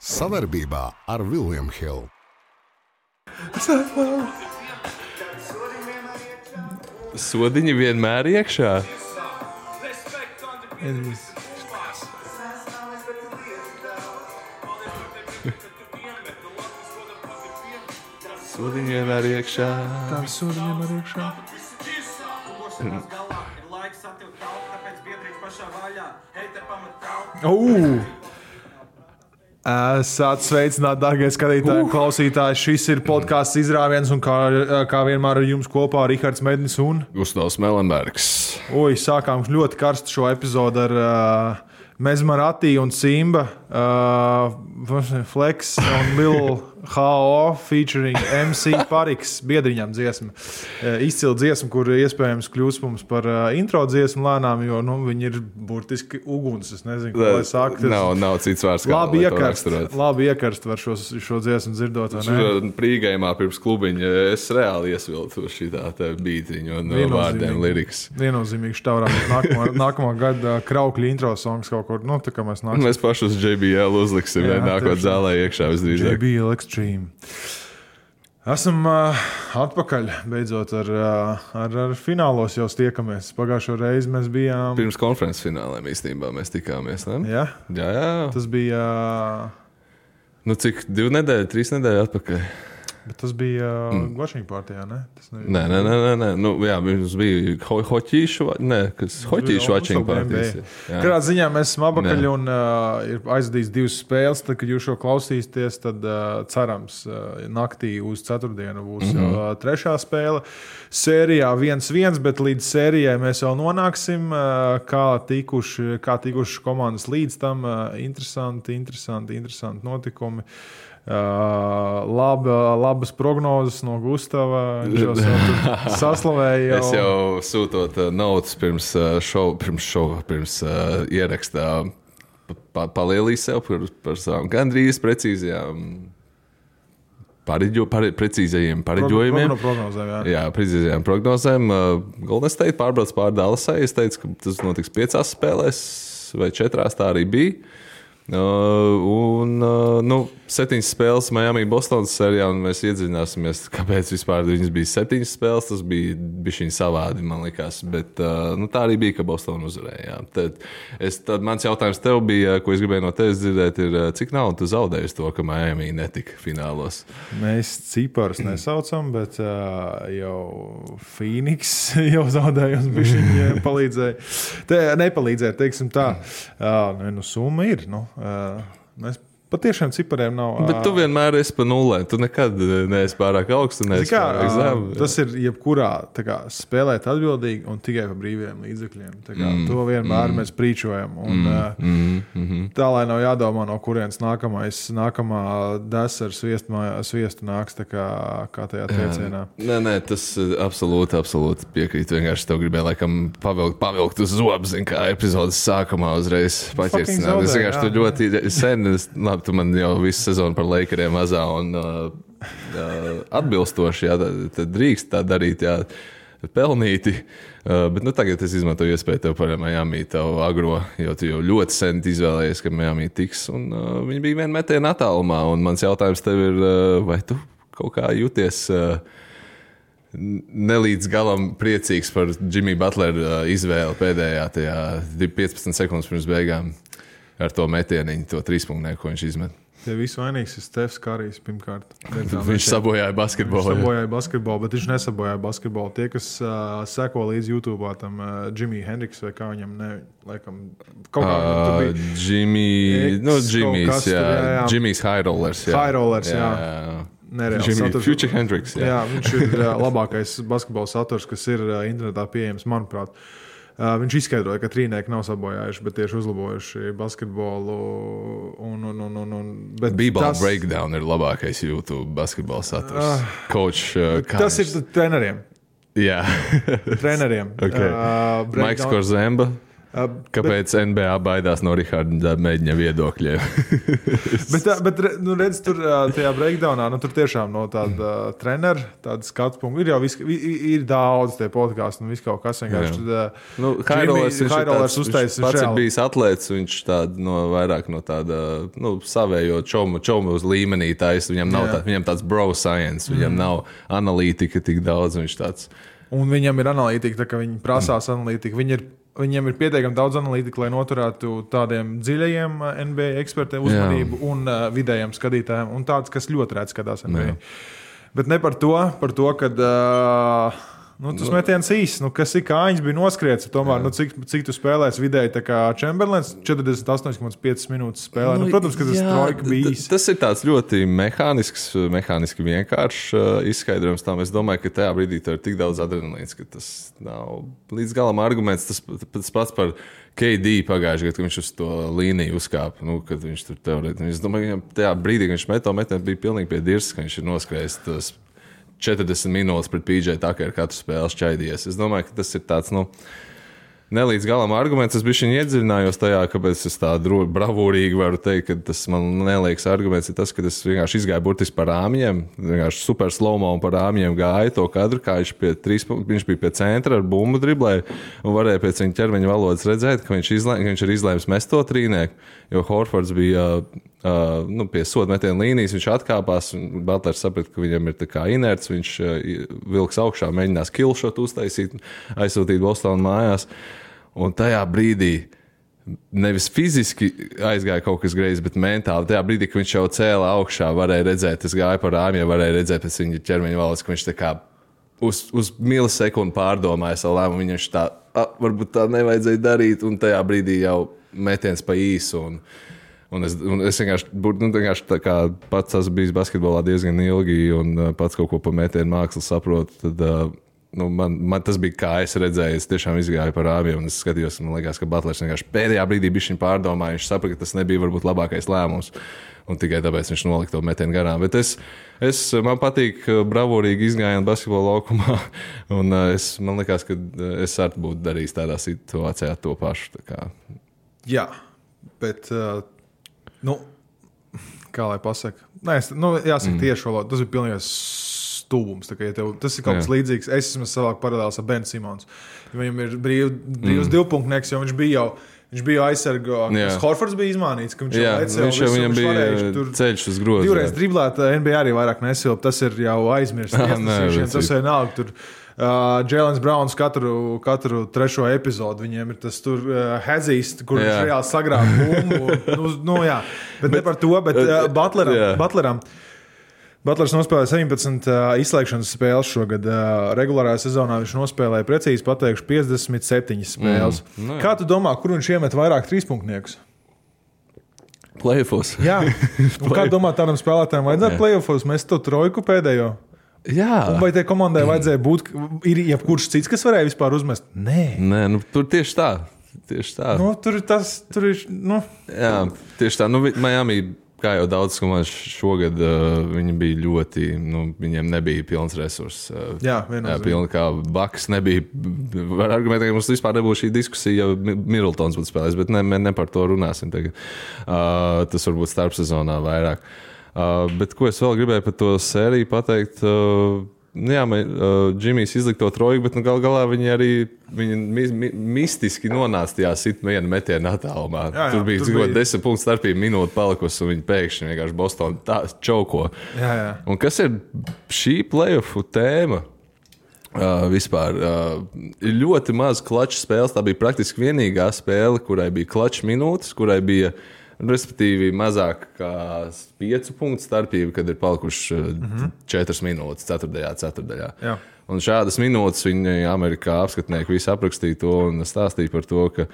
Sadarbībā ar William Hill. Sodiņi vienmēr iekšā. Sodiņi vienmēr iekšā. Tā sodiņi vienmēr iekšā. Esat sveicināti, dārgie skatītāji, klausītāji. Šis ir podkāsts Izrāviens, un kā vienmēr ar jums kopā Rihards Mednis un Gustavs Melenbergs. Sākām ļoti karstu šo epizodu ar Mezmarati un Simba, Flex un Lil H.O. featuring MC Pariks biedriņām dziesma. Izcila dziesma, kur iespējams kļūs mums par intro dziesmu lēnām, jo viņi ir burtiski uguns. Es nezinu, ko lai saka. Nav cits vārds, kā labi iekarst var šo dziesmu dzirdot. Prīgājumā pirms klubiņa es reāli iesviltu šitā bītiņu un vārdiem lirikas. Viennozīmīgi štaurām. Nākamā gada kraukļa intro songs kaut kur. Tā kā mēs nāksim. Mēs paši uz JBL uzliksim, nākot zālē iekšā visdrīzāk. JBL Extreme. Esam atpakaļ, beidzot ar finālos jau tiekamies. Pagājušo reizi mēs bijām... Pirms konferences finālēm īstenībā mēs tikāmies, ne? Jā? Jā. Tas bija... Cik? 2 nedēļas, 3 nedēļas atpakaļ? Bet tas bija watching partijā, ne? Nē. Mums bija hoķīšu watching partijas. Kādā ziņā mēs esam apakaļ un ir aizvadījis 2 spēles. Tad, kad jūs šo klausīsieties, tad cerams naktī uz ceturtdienu būs jau 3. spēle. Sērijā 1-1, bet līdz sērijai mēs vēl nonāksim. Kā tikuši komandas līdz tam. Interesanti notikumi. Labas prognozes no Gustava. Viņš jau saslavēja. Es jau sūtot notes pirms ierakstā palielīju sev par savām gandrīz precīzajām precīzajiem pareģojumiem. Precīzajām prognozēm. Golden State pārbrauc pār Dallasai. Es teicu, ka tas notiks 5 spēlēs vai 4, tā arī bija. 7 spēles Miami Bostonas sērijā, un mēs iedziļināsimies, kāpēc vispār viņas bija 7 spēles. Tas bija bišķiņ savādi, man likās, bet tā arī bija, ka Bostona uzvarēja. Tad mans jautājums tev bija, ko es gribēju no tevis dzirdēt, ir, cik naudu tu zaudēji to, ka Miami netika finālos? Mēs ciparus nesaucam, bet jau Phoenix jau zaudēja un bišķiņ palīdzēja. Nepalīdzēja, teiksim tā. Summa ir, mēs patiešām cipariem nav. Bet tu vienmēr esi pa nulē. Tu nekad neesi pārāk augstu, neesi pārāk zemu. Tas ir jebkurā spēlēt atbildīgi un tikai pa brīviem līdzekļiem. To vienmēr mēs prīčojam. Tā, lai nav jādomā, no kurienes nākamā desa ar sviestu nāks, kā tajā teicienā. Nē, tas absolūti piekrīt. Vienkārši tev gribēju laikam pavilkt uz zobs, kā epizodes sākumā uzreiz paķersināt. Es vienkārši tu ļoti sen... Tu man jau visu sezonu par Lakeriem mazā un atbilstoši, tad drīkst tā darīt, pelnīti. Bet tagad es izmantoju iespēju tev par Miami, tev agro, jo tu jau ļoti sen izvēlējies, ka Miami tiks. Un viņi bija vien metienu attālumā. Un mans jautājums tev ir, vai tu kaut kā jūties nelīdz galam priecīgs par Jimmy Butler izvēli pēdējā tajā 15 sekundes pirms beigām? Ar to metieniņu, to 3-punktu, ko viņš izmet. Tie visu vainīgs ir Stefs Karijs pirmkārt. Viņš sabojāja basketbolu. Bet viņš nesabojāja basketbolu. Tie, kas seko līdz YouTube, tam Jimmy Hendricks vai kā viņam, laikam, kaut kā tur bija. Jimmy's High Rollers. High Rollers, jā. Future Hendricks. Jā, viņš ir labākais basketbola saturs, kas ir internetā pieejams, manuprāt. Viņš izskaidroja, ka trīnieki nav sabojājuši, bet tieši uzlabojuši basketbolu. B-ball breakdown ir labākais YouTube basketbola saturs. Tas ir treneriem. Jā. Treneriem. Okay. Maiks Korzemba. Kāpēc NBA baidās no Riharda mēģina viedokļiem? bet redz, tur tajā breakdownā, tur tiešām no tāda trenera, tāda skatu punktu, ir daudz tie podcasts un viss kaut kas vienkārši. Hairolers uztaisīs. Viņš pats ir bijis atlēts, viņš vairāk no tāda, savējo čomu uz līmenī taisa, viņam tāds bro science, viņam nav analītika tik daudz, viņš tāds. Un viņam ir analītika, tā kā viņi prasās analītika, Viņiem ir pietiekami daudz analītika, lai noturētu tādiem dziļajiem NBA ekspertiem uzmanību un vidējiem skatītājiem, un tāds, kas ļoti rēdz skatās NBA. Bet ne par to, kad tas metiens īsts, kas ir kājiņš bija noskriets, tomēr, cik tu spēlēsi vidēji, tā kā Chamberlains 48,5 minūtes spēlē. Protams, ka tas trojka bija īsts. Tas ir tāds ļoti mehāniski vienkāršs izskaidrojums tam. Es domāju, ka tajā brīdī tur ir tik daudz adrenalīns, ka tas nav līdz galam arguments. Tas pats par KD pagājušajā gadā, kad viņš uz to līniju uzkāpa, kad viņš tur teorētiski. Es domāju, ka tajā brīdī, kad viņš met to metienu, bija pilnīgi pie dirzas, ka viņš ir noskrējis tos 40 minūtes pret PJ Tuckeru katru spēli šķaidījies. Es domāju, ka tas ir tāds, nelīdz galam arguments. Es bišķiņ iedziļinājos tajā, kāpēc es tā bravūrīgi varu teikt, ka tas man neliekas arguments ir tas, ka es vienkārši izgāju burtiski par rāmjiem, vienkārši super slow-mo un par rāmjiem gāju to kadru, kā viņš bija pie centra ar bumbu driblēju un varēja pēc viņa ķermeņa valodas redzēt, ka viņš ir izlēms mest to trīnieku, jo Horfords bija pie soda metiena līnijas, viņš atkāpās un Butlers saprata, ka viņam ir tā kā inerts, viņš vilks augšā, mēģinās killshot uztaisīt, aizsūtīt Bostonu mājās. Un tajā brīdī nevis fiziski aizgāja kaut kas greizi, bet mentāli. Tajā brīdī, kad viņš jau cēla augšā, varēja redzēt, es gāju par rāmjiem, varēja redzēt pēc viņa ķermeņa valodas, ka viņš tā kā uz milisekundi pārdomāja savu lēmumu. Viņš tā, varbūt tā nevajadzēja darīt, un tajā brīdī jau metiens pa īsu. Un es vienkārši tā kā pats esmu bijis basketbolā diezgan ilgi un pats kaut ko pa metienu mākslu saprotu, tad man tas bija kā es redzēju, es tiešām izgāju par rāmjiem un es skatījos, man liekas, ka Butlers vienkārši pēdējā brīdī bišķiņ pārdomāja, viņš saprata, ka tas nebija varbūt labākais lēmums un tikai tāpēc viņš nolika to metienu garām. Bet man patīk bravūrīgi izgājienu basketbola laukumā un man liekas, ka es arī būtu darījis tādā situācijā to pašu. Tā kā. Jā, bet kā lai pasaka? Jāsaka tieši valoda, tas ir pilnīgais stulbums. Tas ir kaut kas līdzīgs. Es esmu savāk paralēls ar Ben Simons. Viņam ir brīvs divpunktnieks, jo viņš bija aizsargo. Horfords bija izmānīts, ka viņš jau viņam bija ceļš uz grozu. Divreiz driblēt, NBA arī vairāk nesilp. Tas ir jau aizmirsts. Tas ir nāk tur. Jēlens Browns katru trešo epizodu viņiem ir tas tur hezīs, kur viņš reāli sagrāb bumbu. Bet ne par to, bet Butleram. Butlers nospēlēja 17 izslēgšanas spēles šogad. Regulārajā sezonā viņš nospēlēja precīzi pateikšu 57 spēles. Kā tu domā, kur viņš iemet vairāk trīspunktniekus? Playoffs. Jā. Un kā domā, tādam spēlētājiem vajadzētu playoffs mest to trojku pēdējo? Jā. Un vai tai komandai vajadzēja būt, ir jebkurš cits, kas varēja vispār uzmest? Nē, tur tieši tā. Tur ir. Jā, tieši tā. Miami, kā jau daudz komandas šogad, viņi bija ļoti, viņiem nebija pilns resurss. Jā, viennozīmīgi. Kā Bucks nebija, var argumentēt, ka mums vispār nebūtu šī diskusija, ja Middletons būtu spēlējis, bet ne par to runāsim tagad. Tas varbūt starpsezonā vairāk. Bet ko es vēl gribēju par to sēriju pateikt, Džimijs izlika to trojku, bet galā viņi mistiski nonāca tajā viena metiena attālumā. Tur bija 10 punktu starpība, minūte palikusi, un viņi pēkšņi vienkārši Bostonu tā čauko. Jā. Un kas ir šī playoffu tēma? Vispār ir ļoti maz klaču spēles. Tā bija praktiski vienīgā spēle, kurai bija klaču minūtes, kurai bija respektīvi mazāk kā 5 punktu starpība, kad ir palikuši 4 minūtes 4. ceturdaļā. Jā. Un šādas minūtes viņi Amerikā apskatnieki visi aprakstīja to un stāstīja par to, ka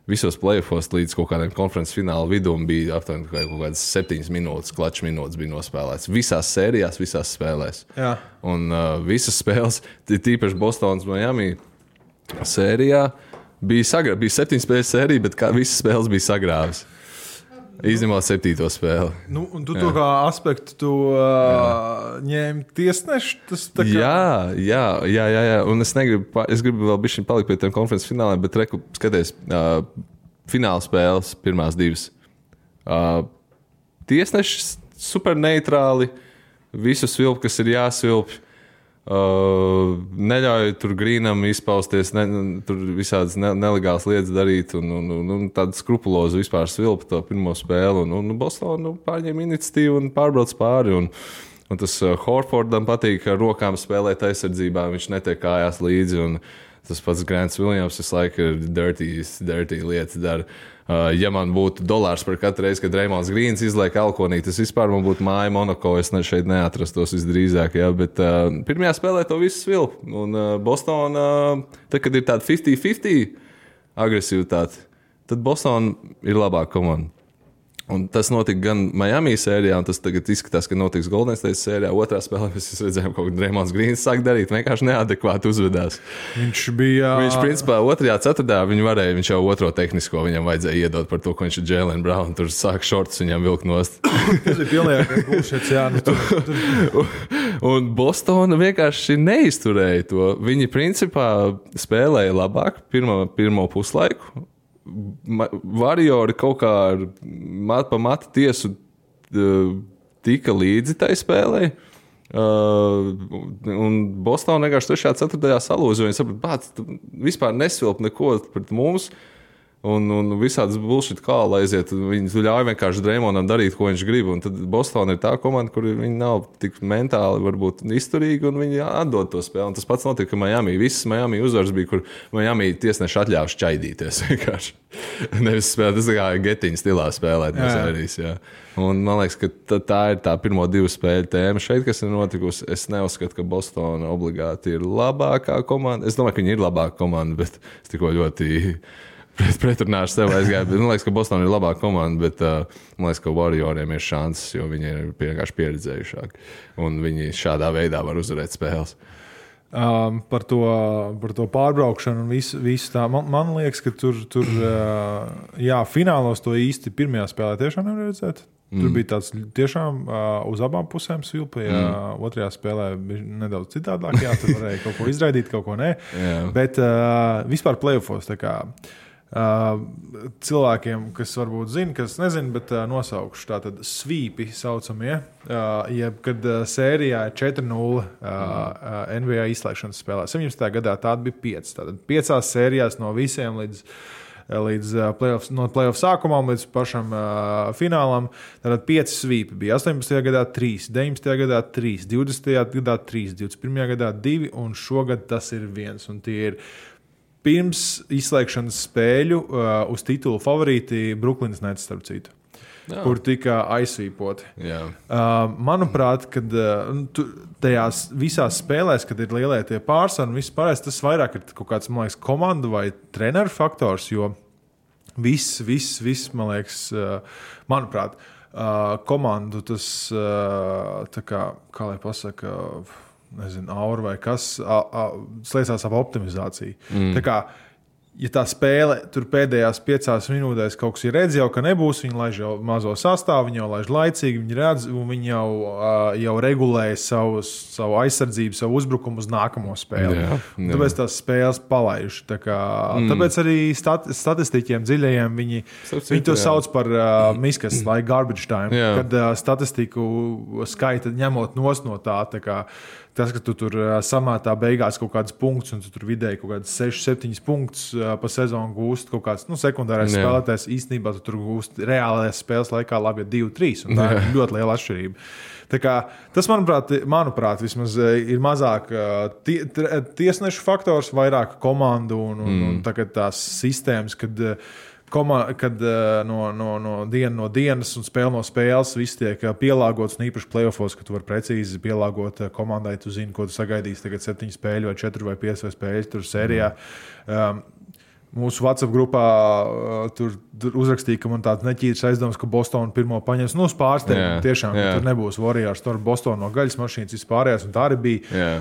visos playoffos līdz kaut kādiem konferences fināla vidum bija aptuveni kaut kādas 7 minūtes, klaču minūtes bija nospēlēts. Visās sērijās, visās spēlēs. Jā. Un visas spēles, tīpaši Bostonas Miami sērijā, bija 7 spēles sērija, bet visas spēles bija sagrāvis. Izņemot 7. spēli. Un tu to kā aspektu tu ņēmi tiesneši? Tas tā kā... Jā. Un es gribu vēl bišķiņ palikt pie tiem konferences fināliem, bet skaties, fināla spēles pirmās 2. Tiesneši super neitrāli, visu svilp, kas ir jāsvilp. Neļauj tur Grīnam izpausties, tur visādas nelegālas lietas darīt un tādu skrupulozu vispār svilpa to pirmo spēli. Un Boston pārņem iniciatīvu un pārbrauc pāri. Un tas Horfordam patīk ar rokām spēlēt aizsardzībā, viņš netiek kājās līdzi. Un tas pats Grants Williams visu laiku ir dirty lietas dara. Ja man būtu $1 par katru reizi, kad Reimonds Grīns izliek alkonī, tas vispār man būtu māja Monako, es šeit neatrastos visdrīzāk. Ja? Bet pirmajā spēlē to visu svilp. Un Boston, tad, kad ir tāda 50-50 agresivitāte, tad Boston ir labāka komanda. Un tas notika gan Miami sērijā, un tas tagad izskatās, ka notiks Golden State sērijā. Otrā spēlē mēs redzējām, ka Reimonds Grīns sāk darīt, vienkārši neadekvāti uzvedās. Viņš principā, 2. ceturtajā viņš jau otro tehnisko viņam vajadzēja iedot par to, ko viņš ir Jaylen Brown. Tur sāk šorts viņam vilkt nost. Tas ir pilnīgi bullshit, jā. Un Bostona vienkārši neizturēja to. Viņi principā spēlēja labāk pirmo puslaiku. Variori kaut kā pa matu tiesu tika līdzi tai spēlē. Un Bostonā vienkārši 3. 4. salūza. Viņi saprata, vispār nesvilp neko pret mums. Un visādas bullshit kāla aiziet. Viņi ļauj vienkārši Dreimondam darīt, ko viņš grib. Un tad Bostonā ir tā komanda, kur viņi nav tik mentāli varbūt izturīgi, un viņi atdod to spēli. Un tas pats notika Miami. Visas Miami uzvaras bija, kur Miami tiesneši atļāva šķaidīties vienkārši. Nevis spēlēt, tas kā getiņa stilā spēlēt no sērijas. Jā. Un man liekas, ka tā ir tā pirmo 2 spēļu tēma šeit, kas ir notikusi. Es neuzskatu, ka Bostona obligāti ir labākā komanda. Es domāju, ka viņi ir labāka komanda, bet es tikko ļoti pretrunāšu sev aizgāju. Man liekas, ka Bostonā ir labāka komanda, bet man liekas, ka Warrioriem ir šansas, jo viņi ir vienkārši pieredzējušāki. Un viņi šādā veidā var uzvarēt spēles. Par to pārbraukšanu un visu tā. Man liekas, ka tur finālos to īsti pirmajā spēlē tiešām nevar redzēt. Tur bija tāds tiešām uz abām pusēm svilpēja. Otrajā spēlē bija nedaudz citādāk. Jā, tur varēja kaut ko izraidīt, kaut ko nē. Bet vispār playoffos tā kā cilvēkiem, kas varbūt zina, kas nezina, bet nosaukšu tātad svīpi saucamie, kad sērijā ir 4-0 NBA izslēgšanas spēlē. 17. gadā tāda bija 5. Tātad 5 sērijās no visiem līdz playoff sākumam, līdz pašam finālam. Tātad 5 svīpi bija 18. gadā 3, 19. gadā 3, 20. gadā 3, 21. gadā 2 un šogad tas ir 1. Un tie ir pirms izslēgšanas spēļu uz titulu favorīti Brooklynas Nets, starp citu, kur tika aizsvīpoti. Manuprāt, kad tajās visās spēlēs, kad ir lielie tie pārsvari un viss pārējais, tas vairāk ir kaut kāds, man liekas, komandu vai treneru faktors, jo viss, man liekas, manuprāt, komandu tas, tā kā lai pasaka, nezinu, aura vai kas, slēdzās ap optimizāciju. Tā kā, ja tā spēle tur pēdējās 5 minūtēs kaut kas ir redz jau, ka nebūs, viņi laiž jau mazo sastāvu, viņi jau laiž laicīgi, viņi redz, un viņi jau regulēja savu aizsardzību, savu uzbrukumu uz nākamo spēli. Tāpēc tās spēles palaiž. Tāpēc arī statistiķiem dziļajiem viņi to sauc par miskas, like garbage time, kad statistiku skaita ņemot nos no tā kā tas, ka tu tur samētā beigās kaut kāds punkts, un tu tur vidēji kaut kāds 6-7 punktus pa sezonu gūst, kaut kāds sekundārais spēlētājs, īstenībā tu tur gūst reālajās spēles laikā labi 2-3, un tā ir ļoti liela atšķirība. Tā kā, tas, manuprāt, vismaz ir mazāk tiesnešu faktors, vairāk komandu un tagad tās sistēmas, kad no dienas un spēle no spēles viss tiek pielāgots, un īpaši playoffos, ka tu vari precīzi pielāgot komandai, tu zini, ko tu sagaidīsi tagad 7 spēļu vai 4 vai 5 spēļu tur sērijā. Mūsu WhatsApp grupā tur uzrakstīja, ka man tāds neķīrs aizdoms, ka Bostona pirmo paņems. Uz pārsteigumu tiešām, ka tur nebūs Warriors, tur Bostona no gaļas mašīnas vispārējās, un tā arī bija.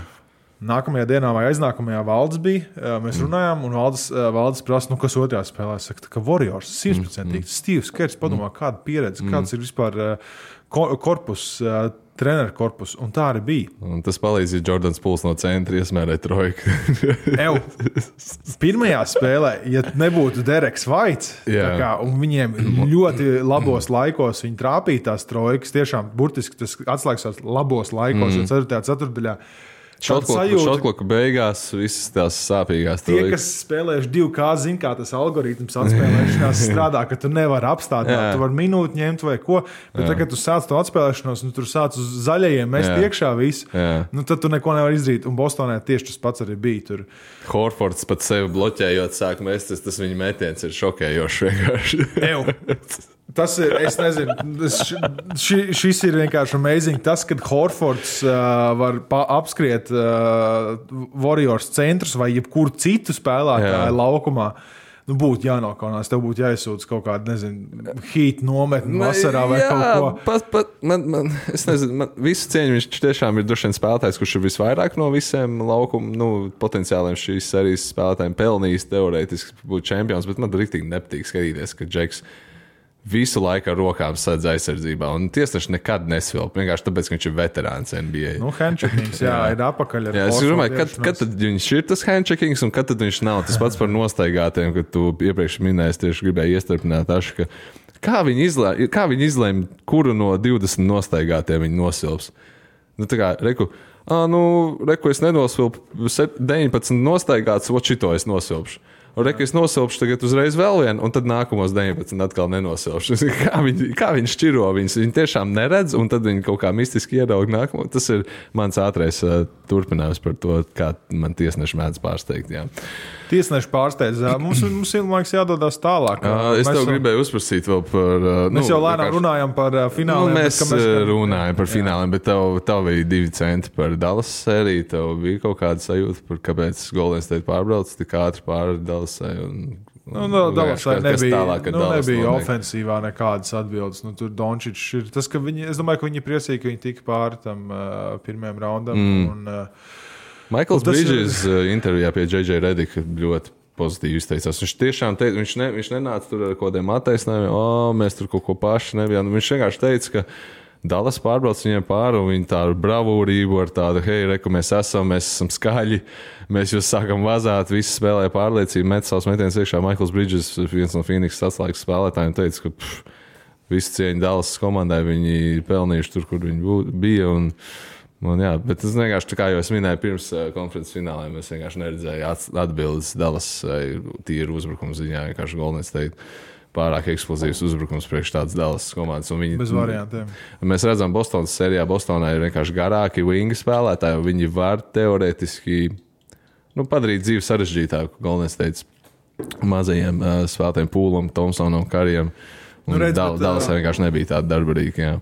Nākamajā dienā vai aiznākamajā Valdes bija. Mēs runājām, un Valdes prasa, kas otrajā spēlē. Saka, ka Warriors 100%. Steve's Kerrs padomā, kāda pieredze, kāds ir vispār korpus, treneru korpus, un tā arī bija. Un tas palīdz, ja Jordans Pools no centra iesmērē trojku. Pirmajā spēlē, ja nebūtu Dereks Vaits, un viņiem ļoti labos laikos viņi trāpīja tās trojkas, tiešām burtiski tas atslēgas labos laikos, jo 4. ceturtdaļā. Šotkloku beigās visas tās sāpīgās trojkas. Tie, kas spēlējuši 2K, zin, kā tas algoritms atspēlēšanās strādā, ka tu nevari apstādināt, tu vari minūti ņemt vai ko, bet tad, kad tu sāc to atspēlēšanos, tur sāc uz zaļajiem mest iekšā visu, tad tu neko nevar izdarīt, un Bostonē tieši tas pats arī bija tur. Horfords pat sevi bloķējot sāk mest, tas viņa metiens ir šokējošs vienkārši. Tas ir, es nezinu, šis ir vienkārši amazing. Tas, kad Horfords var apskriet Warriors centrus vai jebkuru citu spēlētāju laukumā, būtu jānokaunās. Tev būtu jāizsūdz kaut kāda, nezinu, heat nometni vasarā vai kaut ko. Es nezinu, visu cieņu viņš tiešām ir droši vien spēlētājs, kurš ir visvairāk no visiem laukumu, potenciāliem šīs serijas spēlētājiem pelnījis teorētiski būt čempions, bet man riktīgi nepatīk skatīties, ka Džeks visu laiku ar rokām sadz aizsardzībā, un tiesneši nekad nesvilp, vienkārši tāpēc, ka viņš ir veterāns NBA. Handcheckings, ir apakaļ ar es domāju, kad tad viņš ir tas handcheckings, un kad tad viņš nav. Tas pats par nostaigātiem, kad tu iepriekš minēji, tieši gribēji iestarpināt Ašu, ka kā viņi izlēma, kuru no 20 nostaigātiem viņi nosilps. Tā kā, reku, es nenosvilpu 19 nostaigāts, šito es nosilpšu. Reku es nosilpšu tagad uzreiz vēl vienu, un tad nākamos 19 atkal nenosilpšu. Kā viņi šķiro viņus? Viņi tiešām neredz, un tad viņi kaut kā mistiski ieraug nākamo. Tas ir mans ātrais turpinājums par to, kā man tiesneši mēdz pārsteigt. Jā. Tiesneši pārsteidz. Mums liekas jādodas tālāk. Es tev gribēju uzprasīt vēl par... Mēs jau lēnām runājam par fināliem. Mēs runājam par fināliem, bet tev bija 2 centi par Dallas sēriju. Tev bija kaut kāda sajūta par kāpēc Golden State pārbrauc tik ātri pāri Dallasai. Dallasai nebija ofensīvā nekādas atbildes. Tur Dončičs ir tas, ka es domāju, ka viņi priecīgi, ka viņi tika pāri tam pirmajam raundam. Michaels Bridges intervijā pie J.J. Redika ļoti pozitīvi izteicās. Viņš tiešām teica, viņš nenāca tur ar kaut kādiem attaisnājumiem, mēs tur kaut ko paši nebijām. Viņš vienkārši teica, ka Dallas pārbrauc viņiem pāri, un viņi tādu bravūrību ar tādu, hei, reku, mēs esam skaļi, mēs jūs sākam vazāt, visi spēlēja pārliecību, met savus metienus iekšā. Michaels Bridges, viens no Phoenix atslēgas spēlētājiem, teica, ka visu cieņu Dallas komandai viņi pelnījuši tur, kur viņi bija, bet es vienkārši, kā jau es minēju pirms konferences fināliem, es vienkārši neredzēju atbildes Dallas tīru uzbrukumu ziņā, vienkārši Golden State pārāk eksplozīvs uzbrukums priekš tādas Dallas komandas. Bez variantiem. Mēs redzam Bostonas sērijā, Bostonā ir vienkārši garāki wingi spēlētāji, un viņi var teorētiski padarīt dzīvi sarežģītāku Golden State mazajiem spēlētājiem Poolam, Thompsonam, Karijam. Dallasā vienkārši nebija tāda darbarīga,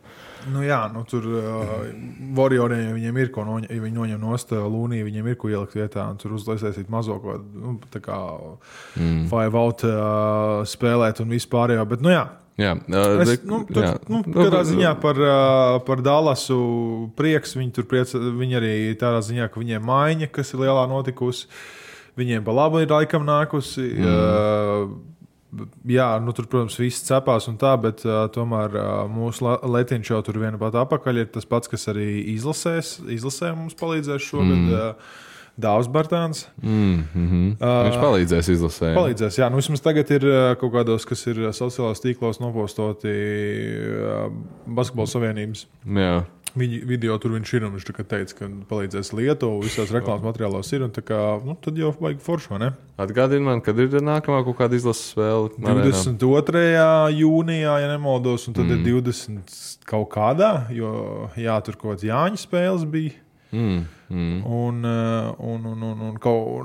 tur Warrioriem viņiem ir ko ja viņi noņem nost Lūniju, viņiem ir ko ielikt vietā, un tur uzlaisēsīt mazo ko, tā kā five out spēlēt un vispārējo, bet katrā ziņā par Dallasu prieks, viņi arī tādā ziņā, ka viņiem maiņa, kas ir lielā notikusi, viņiem pa labu ir laikam nākusi, tur, protams, viss cepās un tā, bet tomēr mūsu Letiņš jau tur viena pat apakaļ ir tas pats, kas arī izlasē mums palīdzēs šogad. Dāvs Bartāns. Viņš palīdzēs izlasē. Palīdzēs, vismaz tagad ir kaut kādos, kas ir sociālās tīklos nopostoti Basketbola Savienības. Jā. Video tur viņš ir, un viņš teica, ka palīdzēs Lietuvu, visās reklāmas materiālos ir, un tā kā, tad jau vajag foršo, ne? Atgādini man, kad ir nākamā kaut kāda izlases spēle? 22. jūnijā, ja nemaldos, un tad ir 20 kaut kādā, jo, tur kaut kāds Jāņa spēles bija.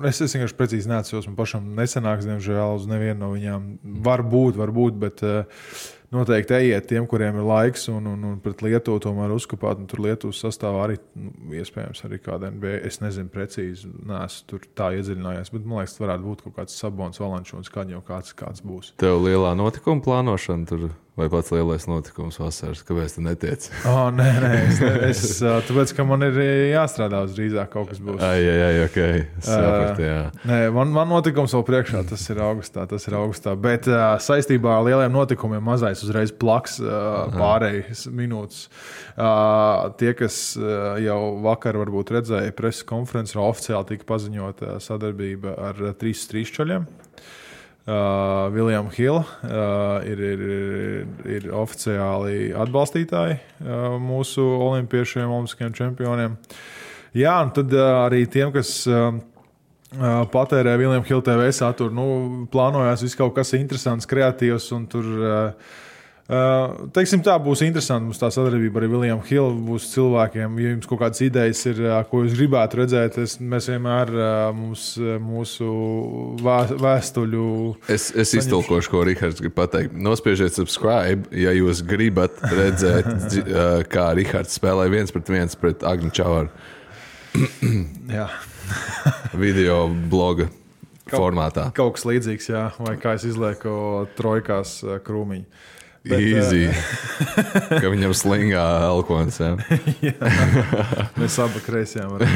Es vienkārši precīzi neatceros, man pašam nesanāks, diemžēl, uz nevienu no viņām. Varbūt, bet noteikti ejiet tiem, kuriem ir laiks, un pret Lietuvu tomēr uzkopāt, un tur Lietuvas sastāvā arī, iespējams, arī kāda NBA, es nezinu precīzi, neesmu tur tā iedziļinājies, bet man liekas, varētu būt kaut kāds Sabons, Valančūns, kad jau kāds būs. Tev lielā notikuma plānošana tur Vai pats lielais notikums vasaras? Kāpēc tu netiec? Nē, tāpēc, ka man ir jāstrādā uz drīzāk kaut kas būs. Ok. Sapratu, jā. Nē, man notikums vēl priekšā, tas ir augustā. Bet saistībā ar lieliem notikumiem mazais uzreiz plaks pārējas minūtes. Tie, kas jau vakar varbūt redzēja preses konferenci, oficiāli tika paziņota sadarbība ar 3 čaļiem. William Hill ir oficiāli atbalstītāji mūsu olimpiešiem, olimpiskajiem čempioniem. Jā, un tad arī tiem, kas patērē William Hill TV saturu, plānojās viss kaut kas interesants, kreatīvs, un tur, teiksim tā, būs interesanti mums tā sadarbība ar William Hill, būs cilvēkiem, ja jums kaut kādas idejas ir, ko jūs gribētu redzēt, mēs vienmēr mūsu vēstuļu... Es iztulkošu, ko Rihards grib pateikt. Nospiežiet subscribe, ja jūs gribat redzēt, kā Rihards spēlē 1-1 pret Agni Čavaru. Jā. Video bloga formātā. Kaut kas līdzīgs, jā, vai kā es izlieku trojkās krūmiņu. Easy. Ka viņam slingā elkons, jā. Mēs abi kreisajām varam.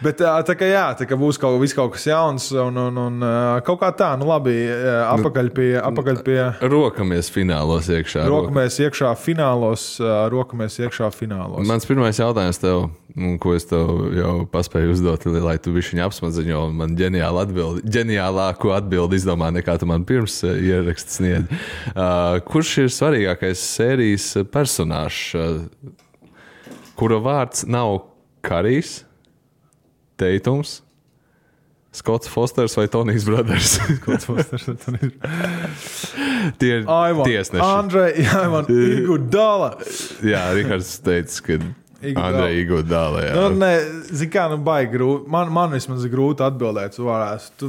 Bet tā kā būs kaut kas jauns un kaut kā tā, labi, apakaļ pie... Rokamies finālos iekšā. Rokamies iekšā finālos. Mans pirmais jautājums tev, ko es tev jau paspēju uzdot, lai tu bišķiņ apsmadziņo, un man ģeniālāku atbildi izdomā, nekā tu man pirms ieraksts sniedz. Kurš ir svarīgākais sērijas personāžs, kura vārds nav Karijs, Teitums, Skots Fosters vai Tonijs Brothers? Skots Fosters vai Tonijs Brothers. Tie ir tiesneši. Andrej, Iguodala. Jā, Rihards teica, ka Andrej Iguodala, jā. Zin kā, baigi grūti. Man vismaz ir grūti atbildēt. Tu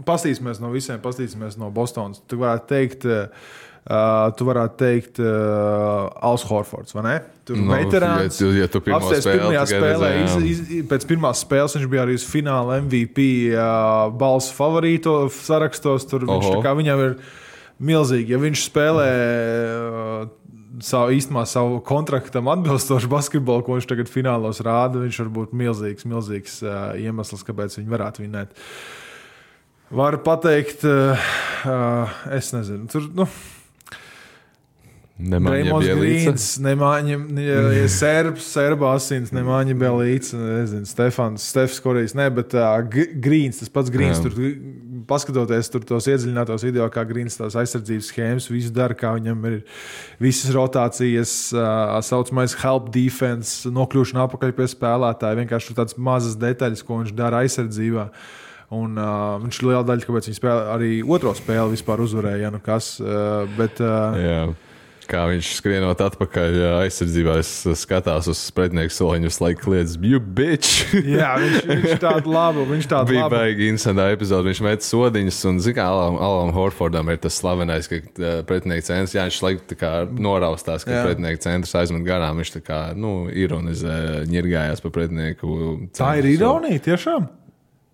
pastīsimies no visiem, pastīsimies no Bostonas. Tu varētu teikt Als Horfords, vai ne? Tur veterāns. Ja tu pirmajā spēlē, pēc pirmās spēles viņš bija arī uz fināla MVP balsu favorīto sarakstos. Tur viņš tā kā viņam ir milzīgi. Ja viņš spēlē savu kontraktam atbilstošu basketbolu, ko viņš tagad finālos rāda, viņš var būt milzīgs iemesls, kāpēc viņi varētu vinēt. Varu pateikt, es nezinu, tur, Nemāņa Bielīca. Serba asins, Nemāņa Bielīca, nezinu, Stefs Korijs, bet Grīns, tas pats Grīns, tur paskatoties tur tos iedziļinātos video, kā Grīns tās aizsardzības schēmas, visu dara, kā viņam ir visas rotācijas, saucamais help defense, nokļūšana apakaļ pie spēlētāja, vienkārši tur tādas mazas detaļas, ko viņš dara aizsardzībā. Un viņš liela daļa, kāpēc viņi spēlē, arī otro spēli vispār uzvarēja, bet... Jā. Kā viņš skrienot atpakaļ aizsardzībā, es skatās uz pretinieku soliņu, visu laiku kliedz, you bitch! Jā, viņš tādu labu. Bija baigi interesantā epizode, viņš met sodiņas, un zin kā Alam Horfordam ir tas slavenais, ka pretinieku centrs, jā, viņš laiku tā kā noraustās, ka pretinieku centrs aizmet garām, viņš tā kā, ironizē, ņirgājās pa pretinieku centru. Tā ir ironija, tiešām?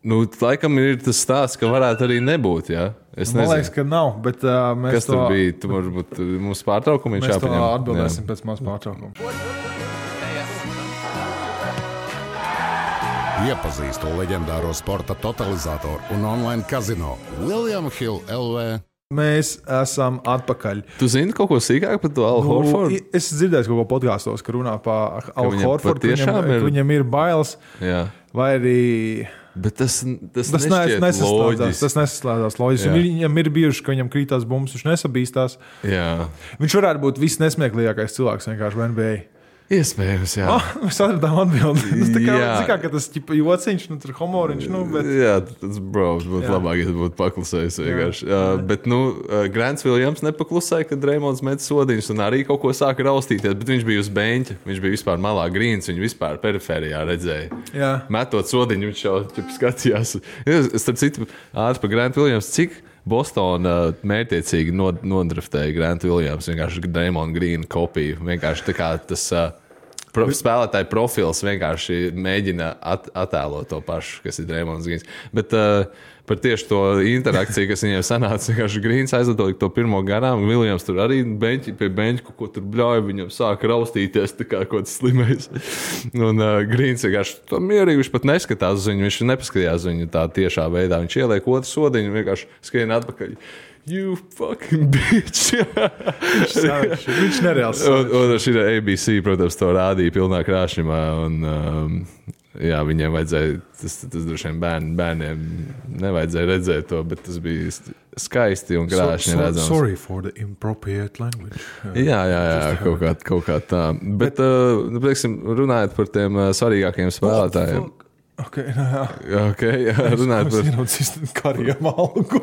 Laikam ir tas stāsts, ka varētu arī nebūt, jā. Man liekas, ka nav, bet mēs Kas tur bija? Tu varbūt mūsu pārtraukumu viņš jāpaņem. Mēs to atbildēsim pēc mūsu pārtraukuma. Iepazīstu leģendāro sporta totalizatoru un online kazino William Hill LV. Mēs esam atpakaļ. Tu zini kaut ko sīkāk par to Al Horfordu? Es dzirdēju kaut ko podkāstos, ka runā par Al Horfordu, ka viņam ir bailes. Jā. Vai arī... Bet tas nesaslēdzās loģiski. Viņam ir bijuši, ka viņam krītās bumbas, viņš nesabīstās. Jā. Viņš varētu būt visnesmieklīgākais cilvēks vienkārši NBA. Iespējams, jā. Mēs atradām atbildi. Tas kā tas jociņš, tur humoriņš. Bet... Jā, tas būtu labāk, ja būtu paklusējis vienkārši. Bet, Grants Williams nepaklusēja, kad Reimonds met sodiņus un arī kaut ko sāka raustīties, bet viņš bija uz beņķa. Viņš bija vispār malā Grīns, viņu vispār periferijā redzēja. Jā. Metot sodiņu, viņš jau skatījās. Starp citu, ātri par Grant Williams, cik Bostona mērķiecīgi nodraftēja Grant Williams, vienkārši Draymond Green kopiju. Vienkārši tā kā tas spēlētāju profils vienkārši mēģina attēlot to pašu, kas ir Draymonds Greens. Bet par tieši to interakciju, kas viņiem sanāca, vienkārši Greens aizlidoja to pirmo garām, Viljams tur arī pie beņķa, ko tur bļauja, viņam sāka raustīties, tā kā kaut kas slimais. Un Greens vienkārši to mierīgi, viņš pat neskatās uz viņu, viņš nepaskatījās viņu tā tiešā veidā. Viņš ieliek otru sodiņu, vienkārši skrien atpakaļ. You fucking bitch! Viņš nereāls. Un šī ABC, protams, to rādīja pilnā krāšņumā. Un, jā, viņiem vajadzēja, tas droši vien bērniem nevajadzēja redzēt to, bet tas bija skaisti un krāšņi redzams. Sorry for the inappropriate language. Jā, kaut kā tā. Bet, teiksim, runājot par tiem svarīgākajiem spēlētājiem. Okay, runājot par... Es kariem algu.